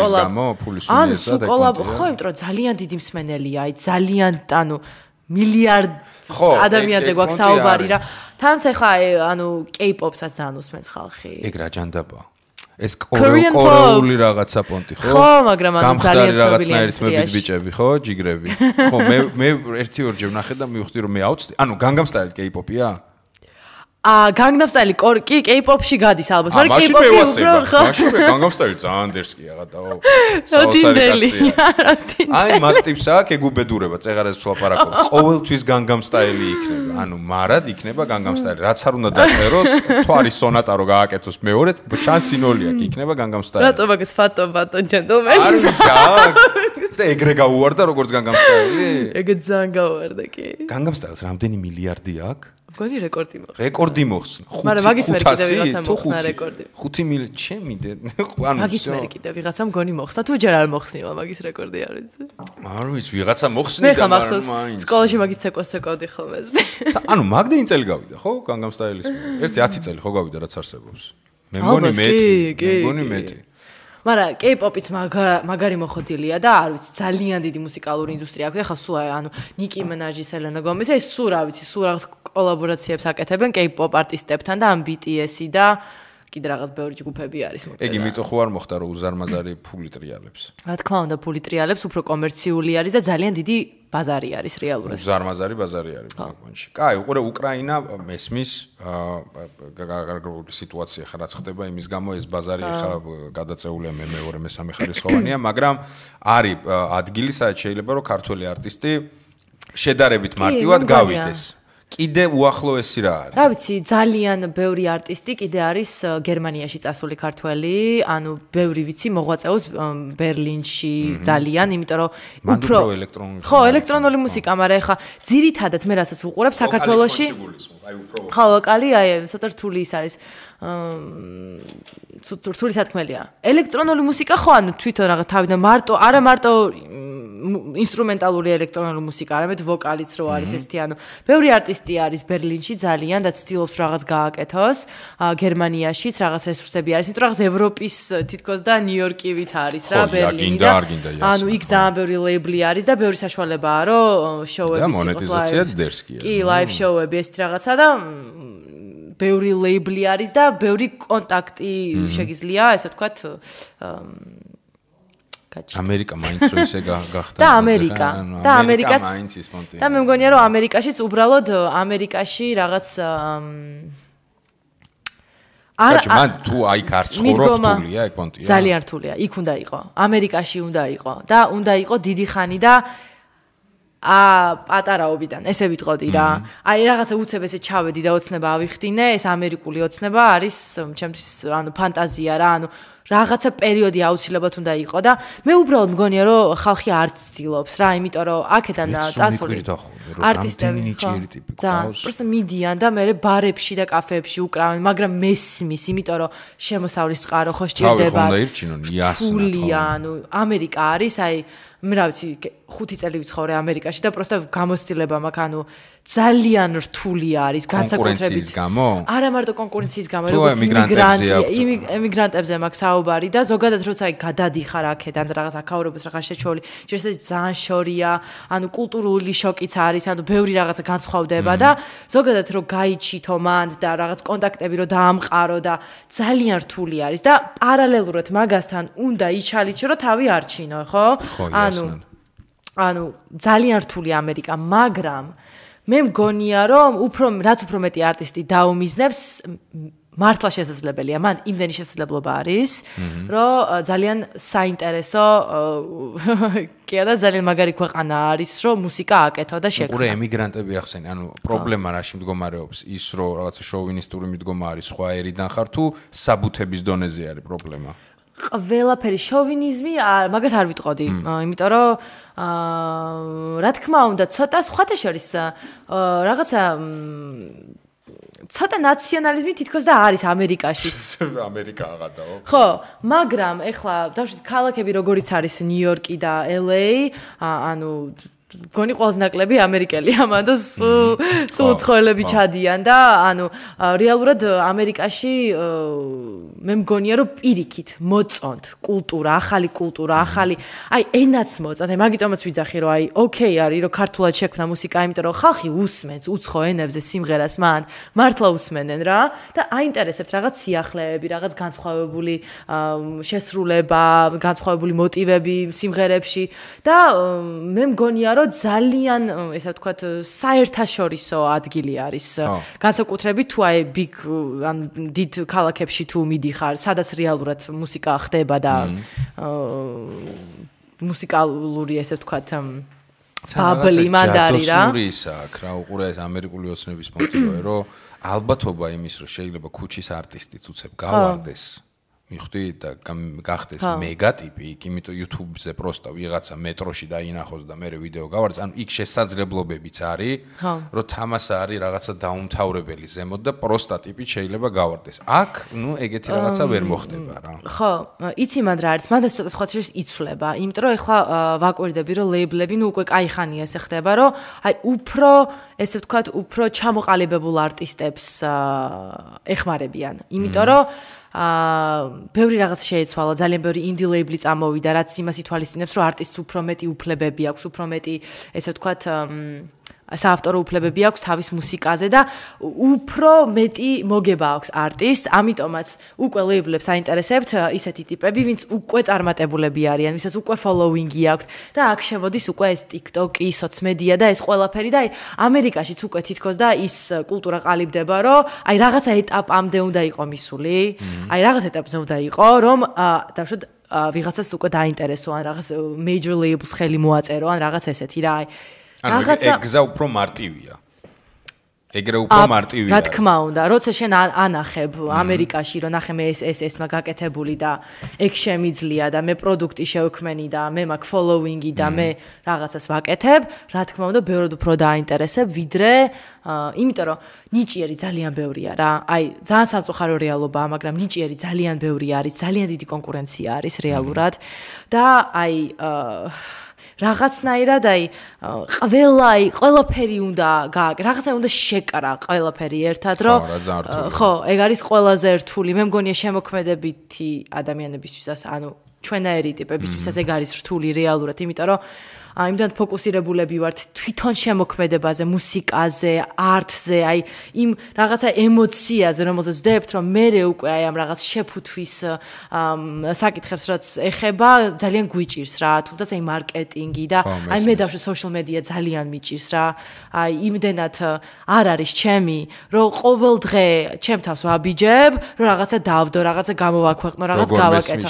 Speaker 3: ხო, იმიტომ რომ ძალიან დიდი მსმენელია, აი ძალიან ანუ მილიარდ ადამიანზე გვაქვს საუბარი რა. თანაც ახლა ანუ K-pop-საც ძალიან უსმენს ხალხი.
Speaker 2: ეგ რა ჯანდაბაა. ეს კორეული რაღაცა პონტი, ხო?
Speaker 3: ხო, მაგრამ ანუ ძალიან ცნობილია
Speaker 2: რაღაცნაირად ბიჭები, ხო, ჯიგრები. ხო, მე 1-2 ჯერ ვნახე და მივხვდი რომ მე აუცდი. ანუ Gangnam Style K-pop-ია?
Speaker 3: Gangnam Style კი K-pop-ში გადის ალბათ, მაგრამ
Speaker 2: K-pop-ი უფრო ხო? მაშინ Gangnam Style ძალიან დერსკია გადაო. აი მაგ ტიპს აქვს ეგუბედურება, წეღარას ვსვლაპარაკობ. ყოველთვის Gangnam Style-ი იქნება. ანუ მარად იქნება Gangnam Style. რაც არ უნდა დაწეროს, თვარის სონატა რო გააკეთოს მეორედ, შანსი 0 აქვს, იქნება Gangnam Style.
Speaker 3: რატო მაგას ფატო gentleman?
Speaker 2: არ ვიცი, ეგრე გაუვარდა როგორც Gangnam Style-ი?
Speaker 3: ეგ ძალიან გაუვარდა კი.
Speaker 2: Gangnam Style-ს რამდენი მილიარდი აქვს?
Speaker 3: გონი რეკორდი მოხსნა.
Speaker 2: რეკორდი მოხსნა.
Speaker 3: მაგრამ მაგის მერე კიდე ვიღაცამ მოხსნა რეკორდი.
Speaker 2: 5 მილიარდი ჩემი ანუ
Speaker 3: მაგის მერე კიდე ვიღაცამ გონი მოხსნა. თუ ჯერ არ მოხსნილა მაგის რეკორდი არ ვიცი.
Speaker 2: არ ვიცი, ვიღაცა მოხსნიდა,
Speaker 3: მაგრამ მაინც. სკოლაში მაგის ცეკვავდი ხოლმე.
Speaker 2: ანუ მაგდენი წელი გავიდა, ხო? Gangnam Style-ის. 10 წელი ხო გავიდა რაც არსებობს. მე მგონი მეტი.
Speaker 3: მაგრამ K-pop-იც მაგარი მოხდილია და არ ვიცი, ძალიან დიდი მუსიკალური ინდუსტრია აქვს. ეხლა სულ ანუ Nicki Minaj, Selena Gomez, ეს სულ რა ვიცი, სულ რაღაც კოლაბორაციებს აკეთებენ K-pop არტისტებთან და ამ BTS-ი და კიდე რაღაც ბევრი ჯგუფები არის მოკლედ.
Speaker 2: ეგ იმიტომ ხო არ მოხდა რომ უზარმაზარი ფული ტრიალებს.
Speaker 3: რა თქმა უნდა, ფული ტრიალებს უფრო კომერციული არის და ძალიან დიდი ბაზარი არის რეალურად.
Speaker 2: უზარმაზარი ბაზარი არის მაგონში. კაი, უყურე უკრაინა მესმის გარკვეული სიტუაცია ხა რაც ხდება იმის გამო ეს ბაზარი ხა გადაწეულია მეორე მესამე ხარისხოვანია, მაგრამ არის ადგილი სადაც შეიძლება რომ ქართველი არტისტი შედარებით მარტივად გავიდეს. კიდე უახლოესი რა არის?
Speaker 3: რა ვიცი, ძალიან ბევრი არტისტი კიდე არის გერმანიაში წასული ქართველი, ანუ ბევრი ვიცი მოღვაწეობს ბერლინში ძალიან, იმიტომ რომ
Speaker 2: უფრო ელექტრონული.
Speaker 3: ხო, ელექტრონული მუსიკა, მაგრამ ეხლა ძირითადად მე რასაც ვუყურებ საქართველოში. ხო, ვოკალი, აი, ცოტა რთული ის არის. რთული სათქმელია. ელექტრონული მუსიკა ხო, ანუ თვითონ რაღაც თავიდან არა მარტო ინსტრუმენტალური ელექტრონული მუსიკა, არამედ ვოკალიც რო არის ესეთი, ანუ ბევრი არტისტი არის ბერლინში ძალიან და ცდილობს რაღაც გააკეთოს, გერმანიაშიც რაღაც რესურსები არის, იმიტომ რაღაც ევროპის თითქოს და ნიუ-იორკივით არის რა ბერლინი და ანუ იქ ძალიან ბევრი ლეიბლი არის და ბევრი საშუალებაა რომ შოუები
Speaker 2: და მონეტიზაცია დერსკია.
Speaker 3: კი, ლაივ შოუები ესეთი რაღაცა და ბევრი ლეიბლი არის და ბევრი კონტაქტი შეგიძლია, ესე ვთქვათ,
Speaker 2: ამერიკა მაინც რო ისე გახდა
Speaker 3: და ამერიკაც
Speaker 2: მაინც ის პონტი
Speaker 3: და მე მგონია რომ ამერიკაშიც უბრალოდ ამერიკაში რაღაც
Speaker 2: მან თუ აი კარც ხორობ რთულია ეგ პონტია
Speaker 3: ძალიან რთულია იქ უნდა იყო ამერიკაში უნდა იყო და უნდა იყო დიდი ხანი და პატარაობიდან ესე ვიტყოდი რა აი რაღაცა უცებ ესე ჩავედი და ოცნება ავიხდინე ეს ამერიკული ოცნება არის ჩემთვის ანუ ფანტაზია რა ანუ რაღაცა პერიოდი აუცილებლად უნდა იყო და მე უბრალოდ მგონია რომ ხალხი არ ცდილობს რა იმიტომ რომ აქედან წასული არტისტები პროსტო მიდიან და მე ბარებში და კაფეებში უკრავენ მაგრამ მესმის იმიტომ რომ შემოსავლის წყარო ხო სჭირდება თულია ანუ ამერიკა არის აი მე რა ვიცი 5 წელი ვიცხოვრე ამერიკაში და პროსტო გამოცდილება მაქვს ანუ ძალიან რთული არის განსაკუთრებით
Speaker 2: გამო?
Speaker 3: არა მარტო კონკურენციის გამო, როგორც ემიგრანტებზე მაქვს საუბარი და ზოგადად როცა აი გადადიხარ აქედან რაღაც აქაურებას რაღაც შეჩოლი, შეიძლება ძალიან შორია, ანუ კულტურული შოკიც არის, ანუ ბევრი რაღაცა განსხვავდება და ზოგადად რო გაიჩითო მანდ და რაღაც კონტაქტები რო დაამყარო და ძალიან რთული არის და პარალელურად მაგასთან უნდა იჩალიჩო რომ თავი არჩინო, ხო? ანუ ძალიან რთული ამერიკა, მაგრამ მე მგონია რომ რაც უფრო მეტი არტისტი დაუმიზნებს მართლა შესაძლებელია მან იმდენი შესაძლებლობა არის რომ ძალიან საინტერესო კი არა ძალიან მაგარი ქვეყანა არის რომ მუსიკა აკეთო და შექმნა
Speaker 2: უყურე ემიგრანტები ახსენე ანუ პრობლემა რაში მდგომარეობს ის რომ რაღაცა შოვინისტური მიდგომა არის სხვა ერიდან ხარ თუ საბუთების დონეზე არის პრობლემა
Speaker 3: ყველაფერი შოვინიზმი მაგას არ ვიტყოდი იმიტომ რომ რა თქმა უნდა ცოტა სხვათა შორის რაღაცა ცოტა ნაციონალიზმი თითქოს და არის ამერიკაშიც
Speaker 2: ამერიკა აღადაო
Speaker 3: ხო მაგრამ ეხლა დავშვით ქალაქები როგორიც არის ნიუ-იორკი და LA ანუ გონი ყველაზე ნაკლები ამერიკელია მანდ სულ ცხოველები ჩადიან და ანუ რეალურად ამერიკაში მე მგონია რომ პირიქით მოწონთ კულტურა ახალი აი ენაც მოწონთ აი მაგიტომაც ვიძახი რომ აი ოკეი არის რომ ქართულად შექმნა მუსიკა იმიტომ რომ ხალხი უსმენს უცხო ენებზე სიმღერას მან მართლა უსმენენ რა და აინტერესებთ რაღაც სიახლეები რაღაც განსხვავებული შესრულება განსხვავებული მოტივები სიმღერებში და მე მგონია რომ ძალიან ესე ვთქვათ საერთაშორისო ადგილი არის. განსაკუთრებით თუ აი big ან დიდ ქალაქებში თუ მიდიხარ, სადაც რეალურად მუსიკა ხდება და მუსიკალური ესე ვთქვათ ბაბლი მანდარი რა.
Speaker 2: ისაა რა უყურე ეს ამერიკული ოცნების პონტი რომ ალბათობა იმის რომ შეიძლება ქუჩის არტისტიც უცებ გავარდეს მიხვდი და გახდეს მეგატიპი იქ იმიტომ YouTube-ზე პროსტა ვიღაცა მეტროში დაინახოს და მე ვიდეო გავარდეს ანუ იქ შესაძლებლობებიც არის რომ თამასა არის რაღაცა დაუმთავრებელი ზემოთ და პროსტა ტიპით შეიძლება გავარდეს აქ ნუ ეგეთი რაღაცა ვერ მოხდება რა
Speaker 3: ხო იცი მანდ რა არის მანდ ცოტა სხვა შეიძლება იცვლება იმიტომ რომ ეხლა ვაკვირდები რომ ლეიბლები ნუ უკვე კაი ხანია ესე ხდება რომ აი უფრო ესე ვთქვათ უფრო ჩამოყალიბებულ არტისტებს ეხმარებიან იმიტომ რომ ბევრი რაღაც შეეცვალა ძალიან ბევრი ინდი ლეიბლი წამოვიდა რაც იმას ითვალისწინებს რომ არტისტს უფრო მეტი უფლებები აქვს უფრო მეტი ესე ვთქვათ საავტორო უფლებები აქვს თავის მუსიკაზე და უფრო მეტი მოგება აქვს არტისტს ამიტომაც უკვე ლეიბლებს აინტერესებთ ისეთი ტიპები ვინც უკვე წარმატებულები არიან ვისაც უკვე ფოლოუინგი აქვს და აქ შემოდის უკვე ეს TikTok-ი სოციმედია და ეს ყველაფერი და აი ამერიკაშიც უკვე თითქოს და ის კულტურა ყალიბდება რომ აი რაღაცა ეტაპამდე უნდა იყო მისული აი რაღაც ეტაპზე უნდა იყო რომ დავშოთ ვიღაცას უკვე დაინტერესო ან რაღაც major labels ხელი მოაწერო ან რაღაც ესეთი რა აი
Speaker 2: ეგზა უფრო მარტივია. ეგრე უფრო მარტივია.
Speaker 3: რა თქმა უნდა, როცა შენ ანახებ ამერიკაში, რომ ნახე მე ეს მაგაკეთებული და ეგ შემიძლია და მე პროდუქტი შევქმენი და მე მაქვს ფოლოუინგი და მე რაღაცას ვაკეთებ, რა თქმა უნდა, ბევრად უფრო დააინტერესებ, ვიდრე იმიტომ რომ ნიჭიერი ძალიან ბევრია რა. აი, ძალიან სამწუხარო რეალობაა, მაგრამ ნიჭიერი ძალიან ბევრი არის, ძალიან დიდი კონკურენცია არის რეალურად და აი რაღაცნაირად აი ყველაფერი უნდა რაღაცა უნდა შეკრა ყველაფერი ერთად რომ ხო ეგ არის ყველაზე რთული მე მგონია შემოქმედებითი ადამიანებისთვისაც ანუ ჩვენაერი ტიპებისთვისაც ეგ არის რთული რეალურად იმიტომ რომ იმდან ფოკუსირებულები ვართ თვითონ შემოქმედებაზე, მუსიკაზე, არტზე, აი იმ რაღაცა ემოციაზე, რომელზეც ვდებთ, რომ მე უკვე აი ამ რაღაც შეფუთვის საკითხებს რაც ეხება, ძალიან გვიჭირს რა, თუნდაც აი მარკეტინგი და აი მე დავშვა social media ძალიან მიჭირს რა. აი იმდენად არ არის ჩემი, რომ ყოველ დღე ჩემ თავს ვაბიჯებ, რომ რაღაცა დავდო, რაღაცა გამოვაქვეყნო, რაღაც გავაკეთო.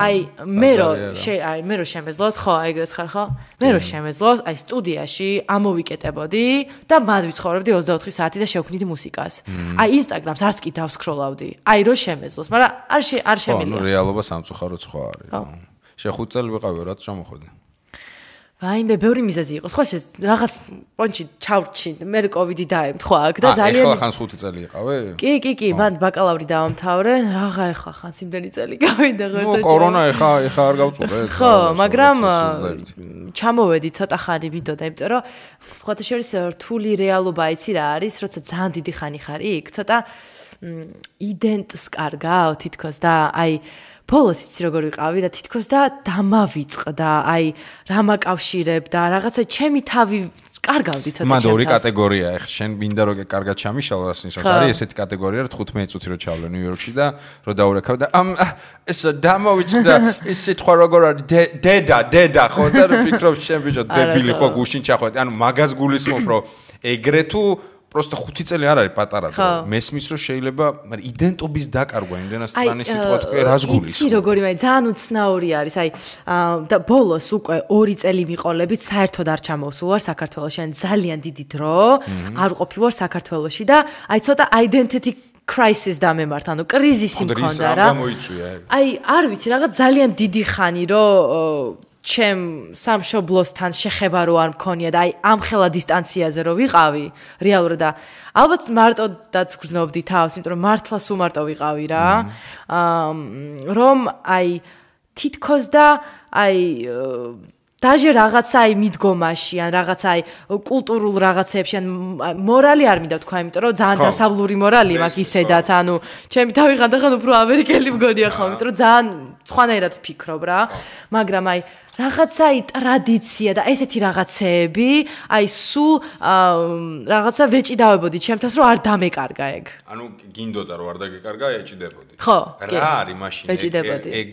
Speaker 3: აი მე რომ შემეძლოს, ხო, ეგრეც ხარ, ხო? მე რო შემეძლოს, აი სტუდიაში ამოვიკეტებოდი და მად ვიცხოვრებდი 24 საათი და შევქმნიდი მუსიკას. აი Instagram-ს არც კი დავსკროლავდი. აი რო შემეძლოს, მაგრამ არ შემიძლია.
Speaker 2: ხო, რეალობა სამწუხაროდ სხვა არის. შე 5 წელი ვიყავი, რაც ჩამოხვედი.
Speaker 3: ვაიმე, ბევრი მიზეზი იყო. სხვა რაღაც პონჩი ჩავრჩი, მე კოვიდი დაემთხვა აქ და ძალიან
Speaker 2: ახლა ხანს 5 წელი იყავე?
Speaker 3: კი, მან ბაკალავრი დავამთავრე, რაღა ახლა ხანს იმდენი წელი გავიდა ღერთო.
Speaker 2: კორონა ახლა არ გავწურე.
Speaker 3: ხო, მაგრამ ჩამოვედი ცოტა ხანი ვიდოდა, იმიტომ რომ სხვათა შორის რთული რეალობა იცი რა არის, როცა ძალიან დიდი ხანი ხარ იქ, ცოტა იდენტს კარგავ თითქოს და აი ბოლოს იცი როგორ ვიყავი რა თითქოს და დამავიწყდა აი რა მაკავშირებ და რაღაცა ჩემი თავი კარგავდი ცოტა
Speaker 2: ჩემს. მან ორი კატეგორია ახლა შენ მინდა რომ კარგად ჩამიშალო ასე ნიშნავს არის ესეთი კატეგორია რა 15 წუთი რო ჩავლე ნიუ-იორკში და რო დაურეკავ და ეს დამავიწყდა ეს სიტყვა როგორ არის დედა ხო და ვფიქრობ შენ ბიჭო დებილი ხო გუშინ ჩახვედი ანუ მაგას გულისხმობ რომ ეგრე თუ просто 5 წელი არ არის პატარა და მესმის რომ შეიძლება მაგრამ იდენტობის დაკარგვა იმდენად სტრანი სიტყვა თქვი რას გულისხმობ
Speaker 3: იცი როგორი მაგრამ ძალიან უცნაური არის აი და ბოლოს უკვე 2 წელი მიყოლებით საერთოდ არ ჩამოვსულ ვარ საქართველოში ან ძალიან დიდი დრო არ ყოფი ვარ საქართველოში და აი ცოტა identity crisis დამემართ ანუ კრიზისი მქონდა რა აი არ ვიცი რაღაც ძალიან დიდი ხანი რომ ჩემ სამშობლოსთან შეხება რო არ მქონია და აი ამ ხელა დისტანციაზე რო ვიყავი რეალურად და ალბათ მარტოდაც გრძნობდი თავს იმიტომ რომ მართლა სულ მარტო ვიყავი რა რომ აი თითქოს და აი დაჟე რაღაცა აი მიდგომაში ან რაღაცა აი კულტურულ რაღაცებში ან მორალი არ მინდა თქვა იმიტომ რომ ძალიან დასავლური მორალი მაქვს ისედაც ანუ ჩემი თავი ხანდახან უფრო ამერიკელი მგონია ხო იმიტომ რომ ძალიან სხვანაირად ვფიქრობ რა მაგრამ აი რაღაცა აი ტრადიცია და ესეთი რაღაცეები აი სულ რაღაცა ვეჭიდავებოდი ჩემთავს რომ არ დამეკარგა ეგ
Speaker 2: ანუ გინდოდა რომ არ დაგეკარგა ეჭიდებოდი
Speaker 3: ხო
Speaker 2: რა არის მაშინ
Speaker 3: ეჭიდებოდი
Speaker 2: ეგ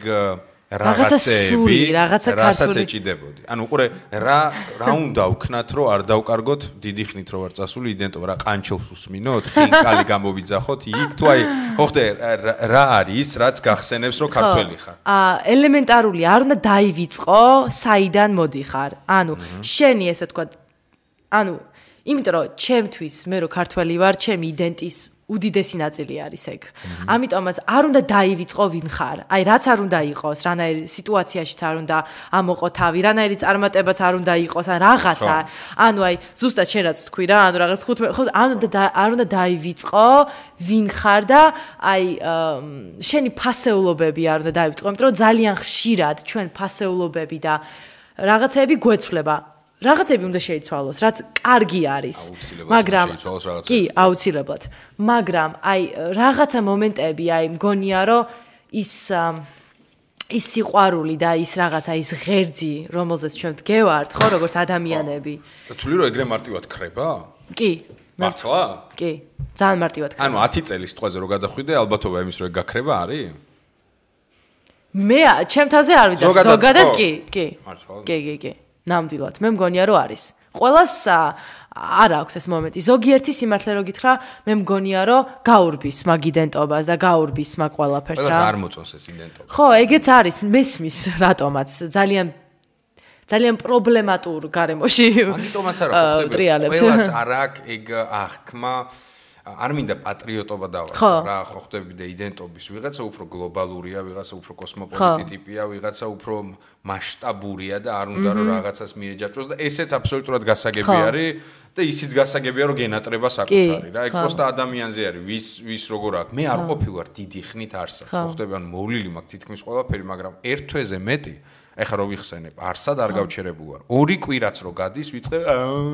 Speaker 2: რაღაცეები,
Speaker 3: რაღაცა
Speaker 2: რასაც ეჭიდებოდი. ანუ უყურე რა უნდა ვქნათ, რომ არ დავკარგოთ დიდი ხნით რო ვარ წასული იდენტობა, რა ყანჩელს უსმინოთ, ხინკალი გამოვიძახოთ იქ თუ აი, ხო ხდე, რა არის, რაც გახსენებს, რომ ქართველი ხარ.
Speaker 3: ელემენტარული, არ უნდა დაივიწყო, საიდან მოდიხარ. ანუ შენი ესე თქვა, ანუ იმიტომ რომ ჩემთვის მე რო ქართველი ვარ, ჩემი იდენტის უდიდესი ნაწილი არის ეგ. ამიტომაც არ უნდა დაივიწყო ვინ ხარ. აი რაც არ უნდა იყოს, რანაირი სიტუაციაშიც არ უნდა ამოყო თავი, რანაირი წარმატებაც არ უნდა იყოს, ან რაღაცა. ანუ აი ზუსტად შენ რაც თქვი რა, ანუ რაღაც 15 ხო არ უნდა დაივიწყო ვინ ხარ და აი შენი ფასეულობები არ უნდა დაივიწყო, იმიტომ რომ ძალიან ხშირად ჩვენ ფასეულობები და რაღაცები გვეცვლება. რაღაცები უნდა შეიცვალოს, რაც კარგი არის. მაგრამ კი, აუცილებლად. მაგრამ აი რაღაცა მომენტები, აი მგონია, რომ ის სიყვარული და ის რაღაცა ის ღერძი, რომელზეც ჩვენ ვდგევართ, ხო, როგორც ადამიანები.
Speaker 2: თვლი რომ ეგრე მარტივად ქრება?
Speaker 3: კი.
Speaker 2: მართლა?
Speaker 3: კი. ძალიან მარტივად ქრება.
Speaker 2: ანუ 10 წელის სიტყვაზე რო გადახვიდე, ალბათობა იმის რომ ეგ გაქრება არის?
Speaker 3: მე ჩემ თავზე არ ვიცი, ზოგადად კი.
Speaker 2: მართლა?
Speaker 3: კი. ნამდვილად, მე მგონია რომ არის. ყველას არ აქვს ეს მომენტი. ზოგიერთი სიმართლე რო გითხრა, მე მგონია რომ გაურბის მაგ იდენტობას და გაურბის მაგ ყველაფერს რა.
Speaker 2: ყველას არ მოწონს ეს იდენტობა.
Speaker 3: ხო, ეგეც არის, მესმის რატომაც ძალიან პრობლემატურ გარემოში.
Speaker 2: მაგიტომაც არა ხო ხდება. ყველას არ აქვს ეგ აღქმა არ მინდა პატრიოტობა დავარ რა ხო ხდები და იდენტობის ვიღაცა უფრო გლობალურია, ვიღაცა უფრო კოსმოპოლიტი ტიპია, ვიღაცა უფრო მასშტაბურია და არ უნდა რომ რაღაცას მიეჯაჭოს და ესეც აბსოლუტურად გასაგები არის და ისიც გასაგებია რომ გენატრება საკუთარი რა. ეგ პროსტა ადამიანზე არის, ვის როგორ აქვს. მე არ ყოფილვარ დიდი ხნით არსად. ხო ხდები, ანუ მოვლილი მაქვს თითქმის ყველაფერი, მაგრამ ერთ თვეზე მეტი ეხლა რო ვიხსენებ, არსად არ გავჩერებულ ვარ. 2 კვირაც რო გადის, ვიწყე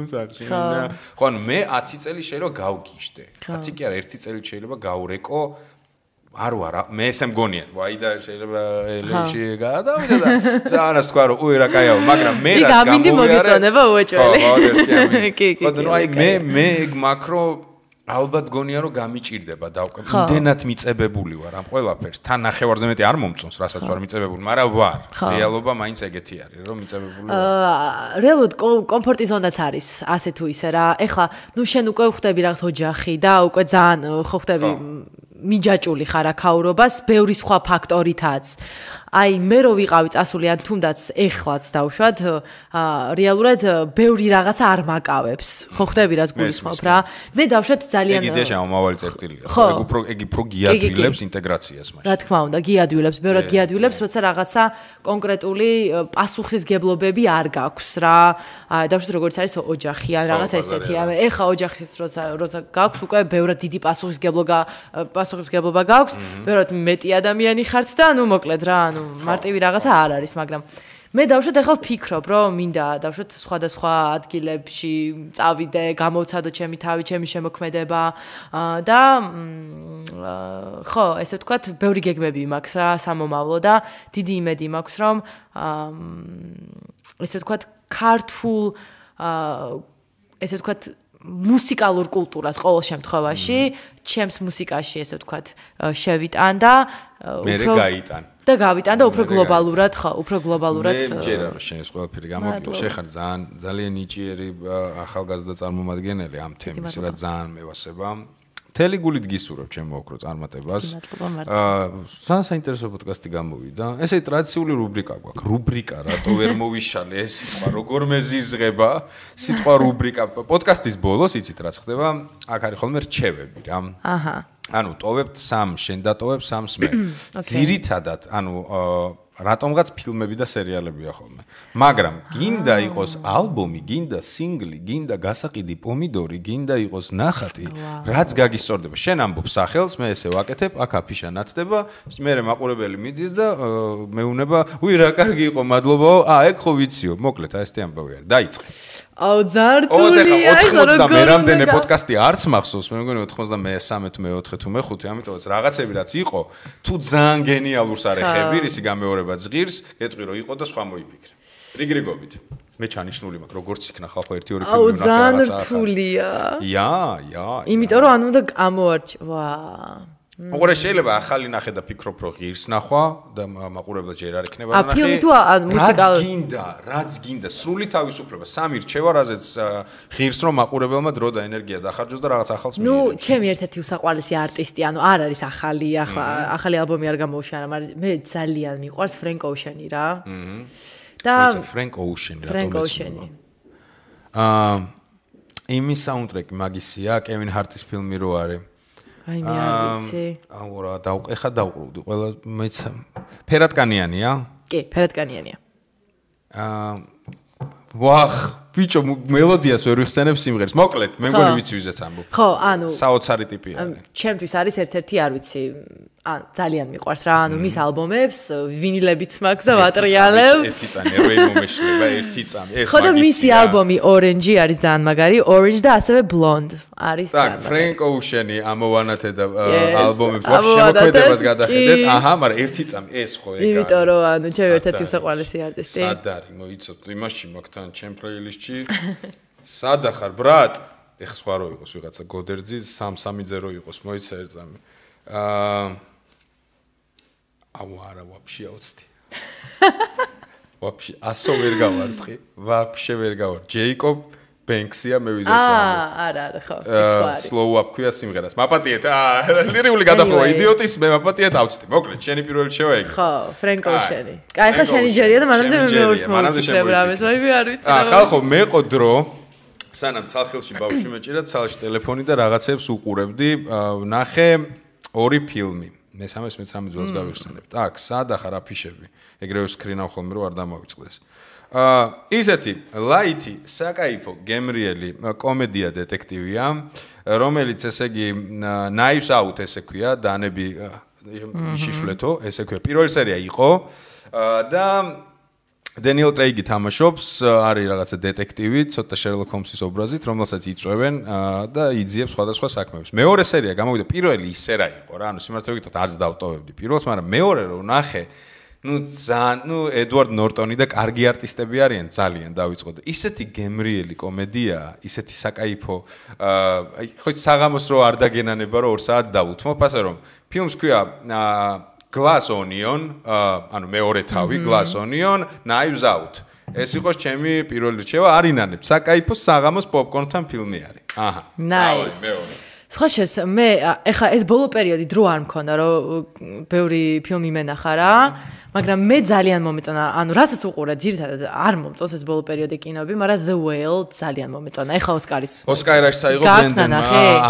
Speaker 2: საჩინია. ხო, ანუ მე 10 წელი შეიძლება გავგიჟდე. 10 კი არა, 1 წელი შეიძლება გავრეკო. არ ვარ, მე ესე მგონია. ვაი და შეიძლება ელეში გადავიდა და ზანას თქვა რომ უი რა კაიაო, მაგრამ მე რაც გამოვიარე.
Speaker 3: გამინდი მოგეწონება უეჭველი.
Speaker 2: ხო, ეს კი ამი.
Speaker 3: კი.
Speaker 2: ხო, ნუ აი მე ეგ მაკრო ალბათ გონია რომ გამიჭირდება და იმდენად მიწებებული ვარ ამ ყველაფერს. თან ნახევარზე მეტი არ მომწონს, რასაც ვარ მიწებებული, მაგრამ ვარ. რეალობა მაინც ეგეთი არის, რომ მიწებებული ვარ.
Speaker 3: რეალურად კომფორტი ზონაც არის, ასე თუ ისე რა. ეხლა, ნუ შენ უკვე ხვდები რაღაც ოჯახი და უკვე ძალიან ხო ხვდები მიჯაჭული ხარ აქაურობას, ბევრი სხვა ფაქტორითაც. აი მე რო ვიყავი წასული ან თუნდაც ეხლაც დავშვათ, რეალურად ბევრი რაღაცა არ მაკავებს. ხო ხვდები რაც გულისხმობ რა. მე დავშვათ ძალიან
Speaker 2: ეგ იდეა შემომავალი წერტილია. ეგ უფრო გიადვილებს ინტეგრაციას მაშინ.
Speaker 3: რა თქმა უნდა, გიადვილებს, ბევრად გიადვილებს, როცა რაღაცა კონკრეტული პასუხისგებლობები არ გაქვს რა. დავშვათ როგორც არის ოჯახი ან რაღაცა ესეთი. ეხა ოჯახის როცა გაქვს, უკვე ბევრად დიდი პასუხისგებლობა გაქვს, ბევრად მეტი ადამიანი ხართ და ნუ მოკლედ რა, ანუ მარტივი რაღაცა არ არის, მაგრამ მე დავშვათ ახლა ვფიქრობ, რომ მინდა დავშვათ სხვადასხვა ადგილებში წავიდე, გამოვცადო ჩემი თავი, ჩემი შემოქმედება და ხო, ესე ვთქვათ, ბევრი გეგმები მაქვს რა, სამომავლო და დიდი იმედი მაქვს, რომ ესე ვთქვათ, ქართულ ესე ვთქვათ მუსიკალურ კულტურას ყოველ შემთხვევაში, ჩემს მუსიკაში ესე ვთქვათ, შევიტან და
Speaker 2: უფრო გაიტან.
Speaker 3: და გავიტან და უფრო გლობალურად, ხო, უფრო გლობალურად.
Speaker 2: მე მჯერა რომ შენ ეს ყველაფერი გამოგიო, შეხარ ძალიან ნიჭიერი ახალგაზრდა წარმომადგენელი ამ თემის, რა ძალიან მევასება. მთელი გულით გისურვებ ჩემ მოკრო წარმატებას. ძალიან საინტერესო პოდკასტი გამოვიდა. ესე ტრადიციული რუბრიკა გვაქვს. რუბრიკა, რატო ვერ მოვიშალე ეს სიტყვა, როგორ მეზიზღება სიტყვა რუბრიკა. პოდკასტის ბოლოს იცით რაც ხდება? აქ არის ხოლმე რჩევები რა. აჰა. ანუ ტოვებთ 3, შენ დატოვებ 3 მე. ძირითადად, ანუ რატომღაც ფილმები და სერიალებია ხოლმე. მაგრამ გინდა იყოს ალბომი, გინდა სინგლი, გინდა გასაყიდი პომიდორი, გინდა იყოს ნახატი, რაც გაგისწორდება. შენ ამბობ სახელს, მე ესე ვაკეთებ, აქ აფიშა ნათდება, მე მაყურებელი მიდის და მეუნება, უი რა კარგი იყო, მადლობაო. ეგ ხო ვიციო, მოკლედ აი ესეთი ამბავი არის. დაიწყე.
Speaker 3: აუ ზართულია,
Speaker 2: 90 მე რამდენი პოდკასტი არც მახსოვს, მე მგონი 93 თუ მე-4 თუ მე-5, ამიტომაც რაღაცები რაც იყო, თუ ძალიან გენიალურს არ ეხები, ისი გამეორება ზღირს, გეტყვი რომ იყო და სხვა მოიფიქრე. რიგრიგობით. მე ჩანიშნული მაქვს, როგორც იქნა ხალხო 1-2 ფილმი
Speaker 3: ნახე რაღაცა. აუ ზართულია.
Speaker 2: ია.
Speaker 3: იმიტომ რომ ანუ უნდა ამოვარჩ, ვა.
Speaker 2: ოღონდ შეიძლება ახალი ნახე და ფიქრობ რომ ღირს ნახვა და მაყურებლად ჯერ არ იქნება
Speaker 3: ნახე. ფილმი თუ მუსიკალური
Speaker 2: რაც გინდა სრული თავისუფლება სამი რჩევა რაზეც ღირს რომ მაყურებელმა დრო და ენერგია დახარჯოს და რაღაც ახალს მიიღოს.
Speaker 3: ჩემი ერთ-ერთი უსაყვარლესი არტისტი, არ არის ახალი ალბომი არ გამოუშვა, მაგრამ მე ძალიან მიყვარს Frank Ocean-ი რა. და
Speaker 2: Frank Ocean-ი
Speaker 3: Frank Ocean-ი.
Speaker 2: იმის საუნდტრეკი მაგისია, Kevin Hart-ის ფილმი რო არის.
Speaker 3: აი მე არ ვიცი.
Speaker 2: აურა ეხა დავყრუდი ყველა მეც ფერატკანიანია?
Speaker 3: კი, ფერატკანიანია.
Speaker 2: ვახ, ბიჭო, მელოდიას ვერ ვიხსენებ სიმღერას. მოკლედ, მე მგონი ვიცი ვიზეც ამბობ.
Speaker 3: ხო,
Speaker 2: საოცარი ტიპი არის.
Speaker 3: ჩემთვის არის ერთ-ერთი, არ ვიცი, ძალიან მიყვარს რა, მის ალბომებს, ვინილებიც მაქვს და ვატრიალებ.
Speaker 2: ერთი წამი, როი მომეშლება, ერთი წამი. ეს
Speaker 3: ხო და მისი ალბომი Orange არის ძალიან მაგარი, Orange და ასევე Blonde არის ძალიან.
Speaker 2: так, Frank Ocean-ი ამოვანათე და ალბომებს ვაფშე შემოქმედებას გადახედეთ. აჰა, მაგრამ ერთი წამი ეს ხო ეგ არის.
Speaker 3: იმიტომ რომ ჩემი ერთ-ერთი საყვარლესი არტისტი.
Speaker 2: სად არის, მოიცოთ, იმაში მაგთან ჩემ პლეილისტში. სად ახარ, ბრატ? ეხა სხვა რო იყოს ვიღაცა გოდერძი 330 იყოს, მოიცა ერთ წამი. არა, ვაფშე აუცდი. ვაფშე, ასო ვერ გავარცხი, ვაფშე ვერ გავარ. ჯეიკობ ბენქსია მე ვიზეც რა.
Speaker 3: არა, ხო, ეს
Speaker 2: slow up ქვია სიმღერას. მაპატიეთ, ლირიული გადახოვა იდიოტის, მე მაპატიეთ ავწდი. მოკლედ, შენი პირველი შევა ეგ.
Speaker 3: ხო, Frank Ocean-ი. კაი, ხა შენი ჯერია და მანამდე მე მეორს მოვიფიქრებ რამეს, მე არ ვიცი.
Speaker 2: ხალხო, მეყო დრო სანამ ცალხილში ბავშვი მეჭირა, ცალში ტელეფონი და რაღაცებს უყურებდი, ნახე ორი ფილმი. მესამეს მეცამე ძველს გავიხსენებ. так, სად ახარ აფიშები? ეგრევე სკრინავ ხოლმე რომ არ დამოვიწყდეს. ისეთი ლაითი, საკაიფო, გემრიელი კომედია დეტექტივია, რომელიც ესე იგი Knives Out ესე ქვია, დანები შიშვლეთო, ესე ქვია. პირველი სერია იყო და Daniel Craig-ი თამაშობს, არის რაღაცა დეტექტივი, ცოტა Sherlock Holmes-ის ობრაზით, რომელსაც იწვევენ და იძიებს სხვადასხვა საქმეებს. მეორე სერია გამოვიდა, პირველი ისე რა იყო რა, სიმართლე ვიგოთ, არც დავტოვებდი პირველს, მაგრამ მეორე რო ნახე, Edward Norton-ი და კარგი არტისტები არიან, ძალიან დავიწყო. ისეთი გემრიელი კომედია, ისეთი საკაიფო, ხო საღამოს რო არ დაგენანება, რომ 2 საათს დავუთმობ, ასე რომ ფილმს ქვია Glass Onion, ანუ მეორე თავი, Glass Onion, Knives Out. ეს იყო ჩემი პირველი რჩევა, არინანებ. საკაიფო საღამოს პოპკორნთან ფილმი არის. აჰა.
Speaker 3: Nice. სხვა შეს მე ეხა ეს ბოლო პერიოდი დრო არ მქონდა, რომ ბევრი ფილმი მენახა რა, მაგრამ მე ძალიან მომეწონა, ანუ რასაც უყურე, ძირითადად არ მომწონს ეს ბოლო პერიოდი კინოები, მაგრამ The Whale ძალიან მომეწონა. ეხა ოსკარის. ოსკარაში
Speaker 2: საიღო ბენდენმა,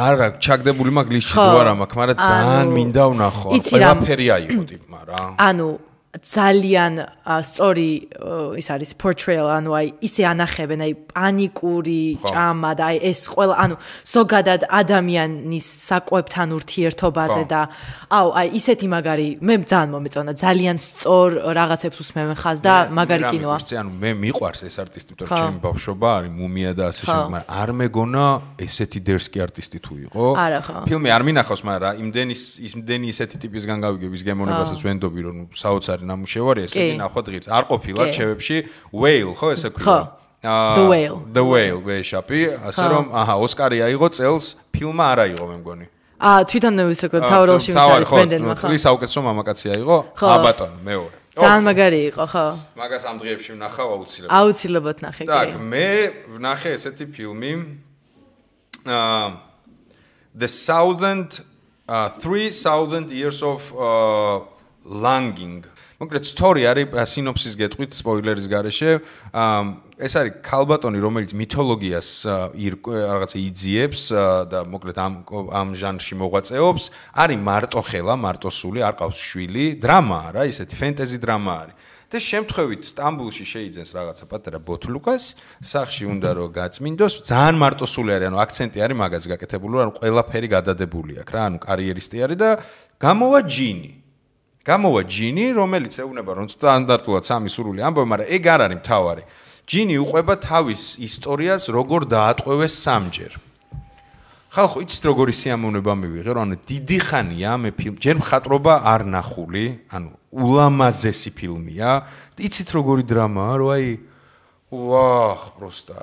Speaker 2: არა, ჩაგდებული მაგ ლისტში თუ არა მაქვს, მაგრამ ძალიან მინდა ვნახო. ყველაფერი აიღო ტიპმა რა.
Speaker 3: ანუ ძალიან სწორი ის არის portrayal, ანუ აი ისე ანახებენ, აი პანიკური ჭამა და აი ეს ყველა, ანუ ზოგადად ადამიანის საკვებთან ურთიერთობაზე და აი ისეთი მაგარი, მე ძალიან მომეწონა, ძალიან სწორ რაღაცებს უსმევენ ხაზს და მაგარი კინოა.
Speaker 2: ანუ მე მიყვარს ეს არტისტი, იმიტომ რომ ჩემი ბავშვობა არის მუმია და ასე შემდეგ, მაგრამ არ მეგონა ესეთი დერსკი არტისტი თუ იყო.
Speaker 3: არა ხო.
Speaker 2: ფილმი არ მინახავს, მაგრამ იმდენი ისეთი ტიპისგან გავიგებ ის გემოვნებასაც ვენდობი, რომ საოცარი ნამუშევარი ესეთი ნახვა დღის. არ ყოფილა ჩევებში Whale, ხო ესე ქვია? The Whale, ვეშაპი, ასე რომ, აჰა, ოსკარი აიღო წელს, ფილმა არ აიღო მე მგონი.
Speaker 3: თვითონ ის როგორ თავროლში არის ბენდენმა, ხო?
Speaker 2: წლის საუკეთესო მამაკაცი აიღო, ბატონო, მეორე.
Speaker 3: ძალიან მაგარი იყო, ხო?
Speaker 2: მაგას ამ დღეებში ვნახავ აუცილებლად.
Speaker 3: აუცილებლად ნახე, კი.
Speaker 2: так, მე ვნახე ესეთი ფილმი The 3000 Years of Longing. მოკლედ სტორი არის სინოფსის გეტყვით სპოილერის გარეშე. ეს არის ქალბატონი, რომელიც მითოლოგიას რაღაცა იძიებს და მოკლედ ამ ჟანრში მოღვაწეობს. არის მარტოხელა, მარტოსული, არ ყავს შვილი, დრამაა რა, ისეთი ფენტეზი დრამა არის. და შემთხვევით სტამბულში შეიძენს რაღაცა პატარა ბოთლუკას, სახში უნდა რომ გაწმინდოს, ძალიან მარტოსული არის, ანუ აქცენტი არის მაგაზე გაკეთებული, ანუ ყველაფერი გადადებული აქვს რა, ანუ კარიერისტი არის და გამოვა ჯინი, რომელიც ეუბნება რომ სტანდარტულად სამი სურვილი ამბობ, მაგრამ ეგ არ არის მთავარი. ჯინი უყვება თავის ისტორიას, როგორ დაატყვევეს სამჯერ. ხალხო, იცით როგორი სიამოვნება მივიღე, რომ ანუ დიდი ხანია მე ფილმ, ჯერ მხატვრობა არ ნახული, ანუ ულამაზესი ფილმია. იცით როგორი დრამაა, რომ აი ვაჰ, პროსტა,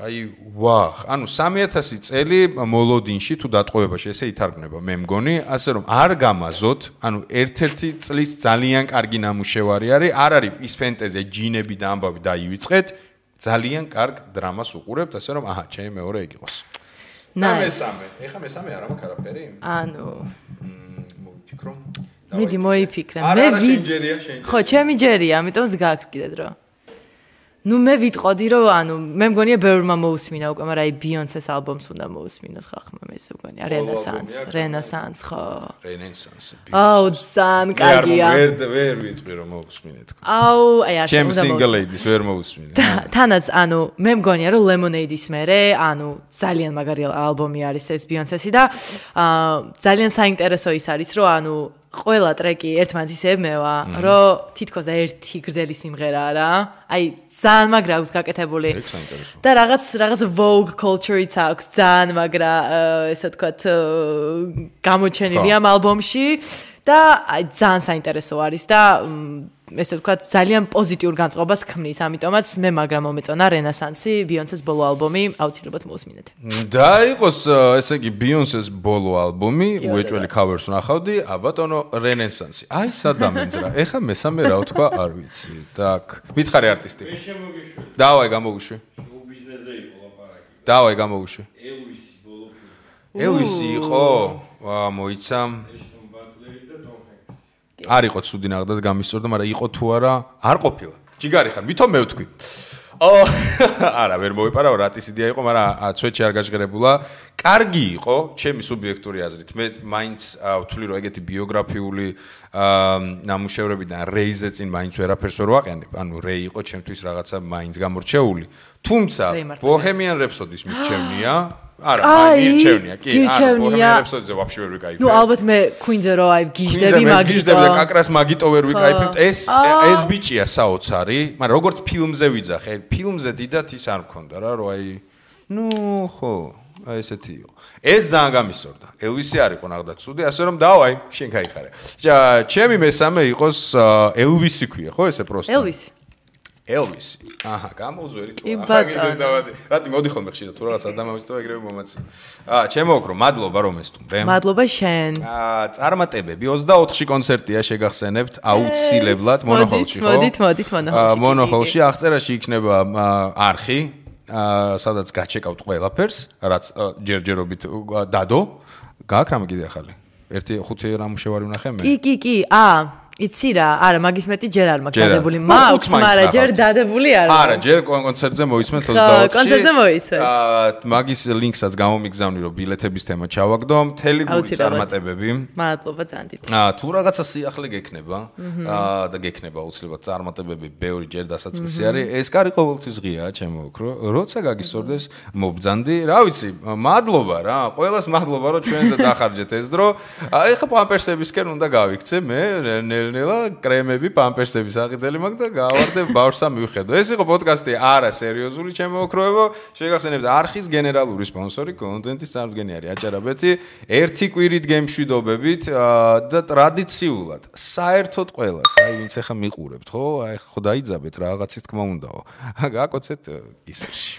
Speaker 2: ვაჰ. ანუ 3000 წელი მოლოდინში თუ დატყვევებაში ესე ითარგმნება, მე მგონი, ასე რომ არ გამაზოთ, ანუ ერთ-ერთი წლის ძალიან კარგი ნამუშევარი არის, არ არის ის ფენტეზია, ჯინები და ამბავი დაივიწყეთ, ძალიან კარგ დრამას უყურებთ, ასე რომ აჰა, ჩემი მეორე ეგ იყოს. მესამე. ეხა მესამე არ მაქვს არაფერი?
Speaker 3: ანუ
Speaker 2: მოვიფიქრო.
Speaker 3: მიდი მოიფიქრე. მე ხო, ჩემი ჯერია, ამიტომ გაქვს კიდე დრო. ნუ მე ვიტყოდი რომ ანუ მე მგონია ბევრმა მოусმინა უკვე, მაგრამ აი ბიონსეს ალბომს უნდა მოусმინოს ხახმა, მე ესე მგონია რენესანს ხო.
Speaker 2: რენესანსი.
Speaker 3: აუ, ძალიან კარგია.
Speaker 2: ვერ ვიტყვი რომ მოусმინეთ.
Speaker 3: აუ, აი არ
Speaker 2: შემ single ladies ვერ მოусმინე.
Speaker 3: თანაც ანუ მე მგონია რომ Lemonade-ის მერე, ანუ ძალიან მაგარი ალბომი არის ეს ბიონსესი და ძალიან საინტერესო ის არის რომ ანუ ყველა ტრეკი ერთმანეთს ემევა, რომ თითქოს ერთი გრძელი სიმღერაა რა. აი, ძალიან მაგრა აქვს გაკეთებული. და რაღაც Vogue culture-იც აქვს, ძალიან მაგრა, ესე ვთქვათ, გამოჩენილი ამ ალბომში და აი ძალიან საინტერესო არის და ესე ვთქვათ, ძალიან პოზიტიურ განწყობას ქმნის, ამიტომაც მე მაგრამ მომეწონა რენესანსი, ბიონსეს ბოლო ალბომი, აუცილებლად მოусმინეთ.
Speaker 2: და იყოს ესე იგი ბიონსეს ბოლო ალბომი, უეჭველი cover-ს ნახავდი, აბატონო რენესანსი. აი სადამენძ რა. ეხა მესამე რა ვთქვა, არ ვიცი. так, მითხარი არტისტი.
Speaker 4: მე შემოგიშვი.
Speaker 2: დავაი გამოვიშვი.
Speaker 4: შოუ ბიზნესზე იყო ლაპარაკი.
Speaker 2: დავაი გამოვიშვი.
Speaker 4: ელვისი ბოლო ფილმი.
Speaker 2: ელვისი იყო? ვა, მოიცა.
Speaker 4: ეშტონ ბატლერი და დონ ჰენკსი.
Speaker 2: არ იყო ცუდი ნახდათ გამისწორდა, მაგრამ იყო თუ არა, არ ყოფილა. ჯიგარი ხარ, ვითომ მე ვთქვი. არა, ვერ მოვიპარავ, რატის იდეა იყო, მაგრამ ცვეთში არ გაჟღერებულა. კარგი იყო, ჩემი სუბიექტური აზრით. მე მაინც ვთვლი, რომ ეგეთი ბიოგრაფიული ნამუშევრებიდან რეიზე წინ მაინც ვერაფერს ვერ ვაყენებ. ანუ რეი იყო ჩემთვის რაღაცა მაინც გამორჩეული. თუმცა Bohemian Rhapsody-ს მიჩვენია. არა, მირჩევნია, კი, Bohemian Rhapsody-ზე ვაფშე ვერ ვიკაიფებ.
Speaker 3: ნუ ალბათ მე Queen-ზე რო აი გიჟდები მაგიტო.
Speaker 2: გიჟდები და კაკრას მაგიტო ვერ ვიკაიფებ. ეს ბიჭია საოცარი, მაგრამ როგორც ფილმზე ვიძახე, ფილმზე დიდად ის არ მქონდა რა, რომ აი ნუ ხო, აი ესეთი იყო. ეს ძალიან გამისწორდა. ელვისი არ იყო ნახდა ცუდი, ასე რომ დავაი, შენ გაიხარე. ჩემი მესამე იყოს ელვისი ქვია, ხო ესე პროსტა? ელვისი. აჰა, გამოვზვერი თუ არა. რატი მოდი ხოლმე ხშირად თუ რაღაც ადამიანის თუ ეგრევე მომაცი. ჩემო ოქრო, მადლობა რომ ესტუმრე.
Speaker 3: მადლობა შენ.
Speaker 2: წარმატებები 24-ში კონცერტია შეგახსენებთ, აუცილებლად მონოხოლში, ხო?
Speaker 3: მოდით მონოხოლში.
Speaker 2: მონოხოლში აღწერაში იქნება არხი, სადაც გაჩეკავთ ყველაფერს, რაც ჯერჯერობით დადო. გააქვს რამე კიდე ახალი? 1-5 ნამუშევარი ვნახე მე.
Speaker 3: კი, იცი რა, არა, მაგის მეტი ჯერ არ მაქვს დადებული. მაქვს, მაგრამ ჯერ დადებული არ მაქვს.
Speaker 2: არა, ჯერ კონცერტზე მოისმენთ 24-ში.
Speaker 3: კონცერტზე მოისმენთ.
Speaker 2: მაგის ლინკსაც გამომიგზავნი, რომ ბილეთების თემა ჩავაგდო, მთელი გული წარმატებები.
Speaker 3: მადლობა ძალიან დიდი.
Speaker 2: თუ რაღაცა სიახლე გექნება და გექნება აუცილებლად წარმატებები, ბევრი ჯერ დასაწყისი არის. ეს კარი ყოველთვის ღიაა, ჩემო ოქრო. როცა გაგისწორდეს, მობძანდი. რა ვიცი, მადლობა რა. ყველას მადლობა, რომ ჩვენზე დახარჯეთ ეს დრო. ეხა პამპერსებისკენ უნდა გავიქცე მე ნელა კრემები, პამპერსები საყიდელი მაქვს და გავარდე ბავშვსა მივხედო. ეს იყო პოდკასტი არა სერიოზული ჩემო ოქროებო. შეგახსენებთ არხის გენერალური სპონსორი კონტენტის წარმოდგენი არის აჭარაბეთი. ერთი კვირით გემშვიდობებით და ტრადიციულად საერთოდ ყველას, აი ვინც ახლა მიყურებთ, ხო? აი ხო დაიძაბეთ რაღაცის თქმა უნდაო. გააკოცეთ ისერში.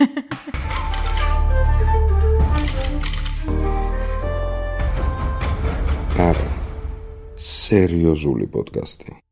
Speaker 1: არა სერიოზული პოდკასტი.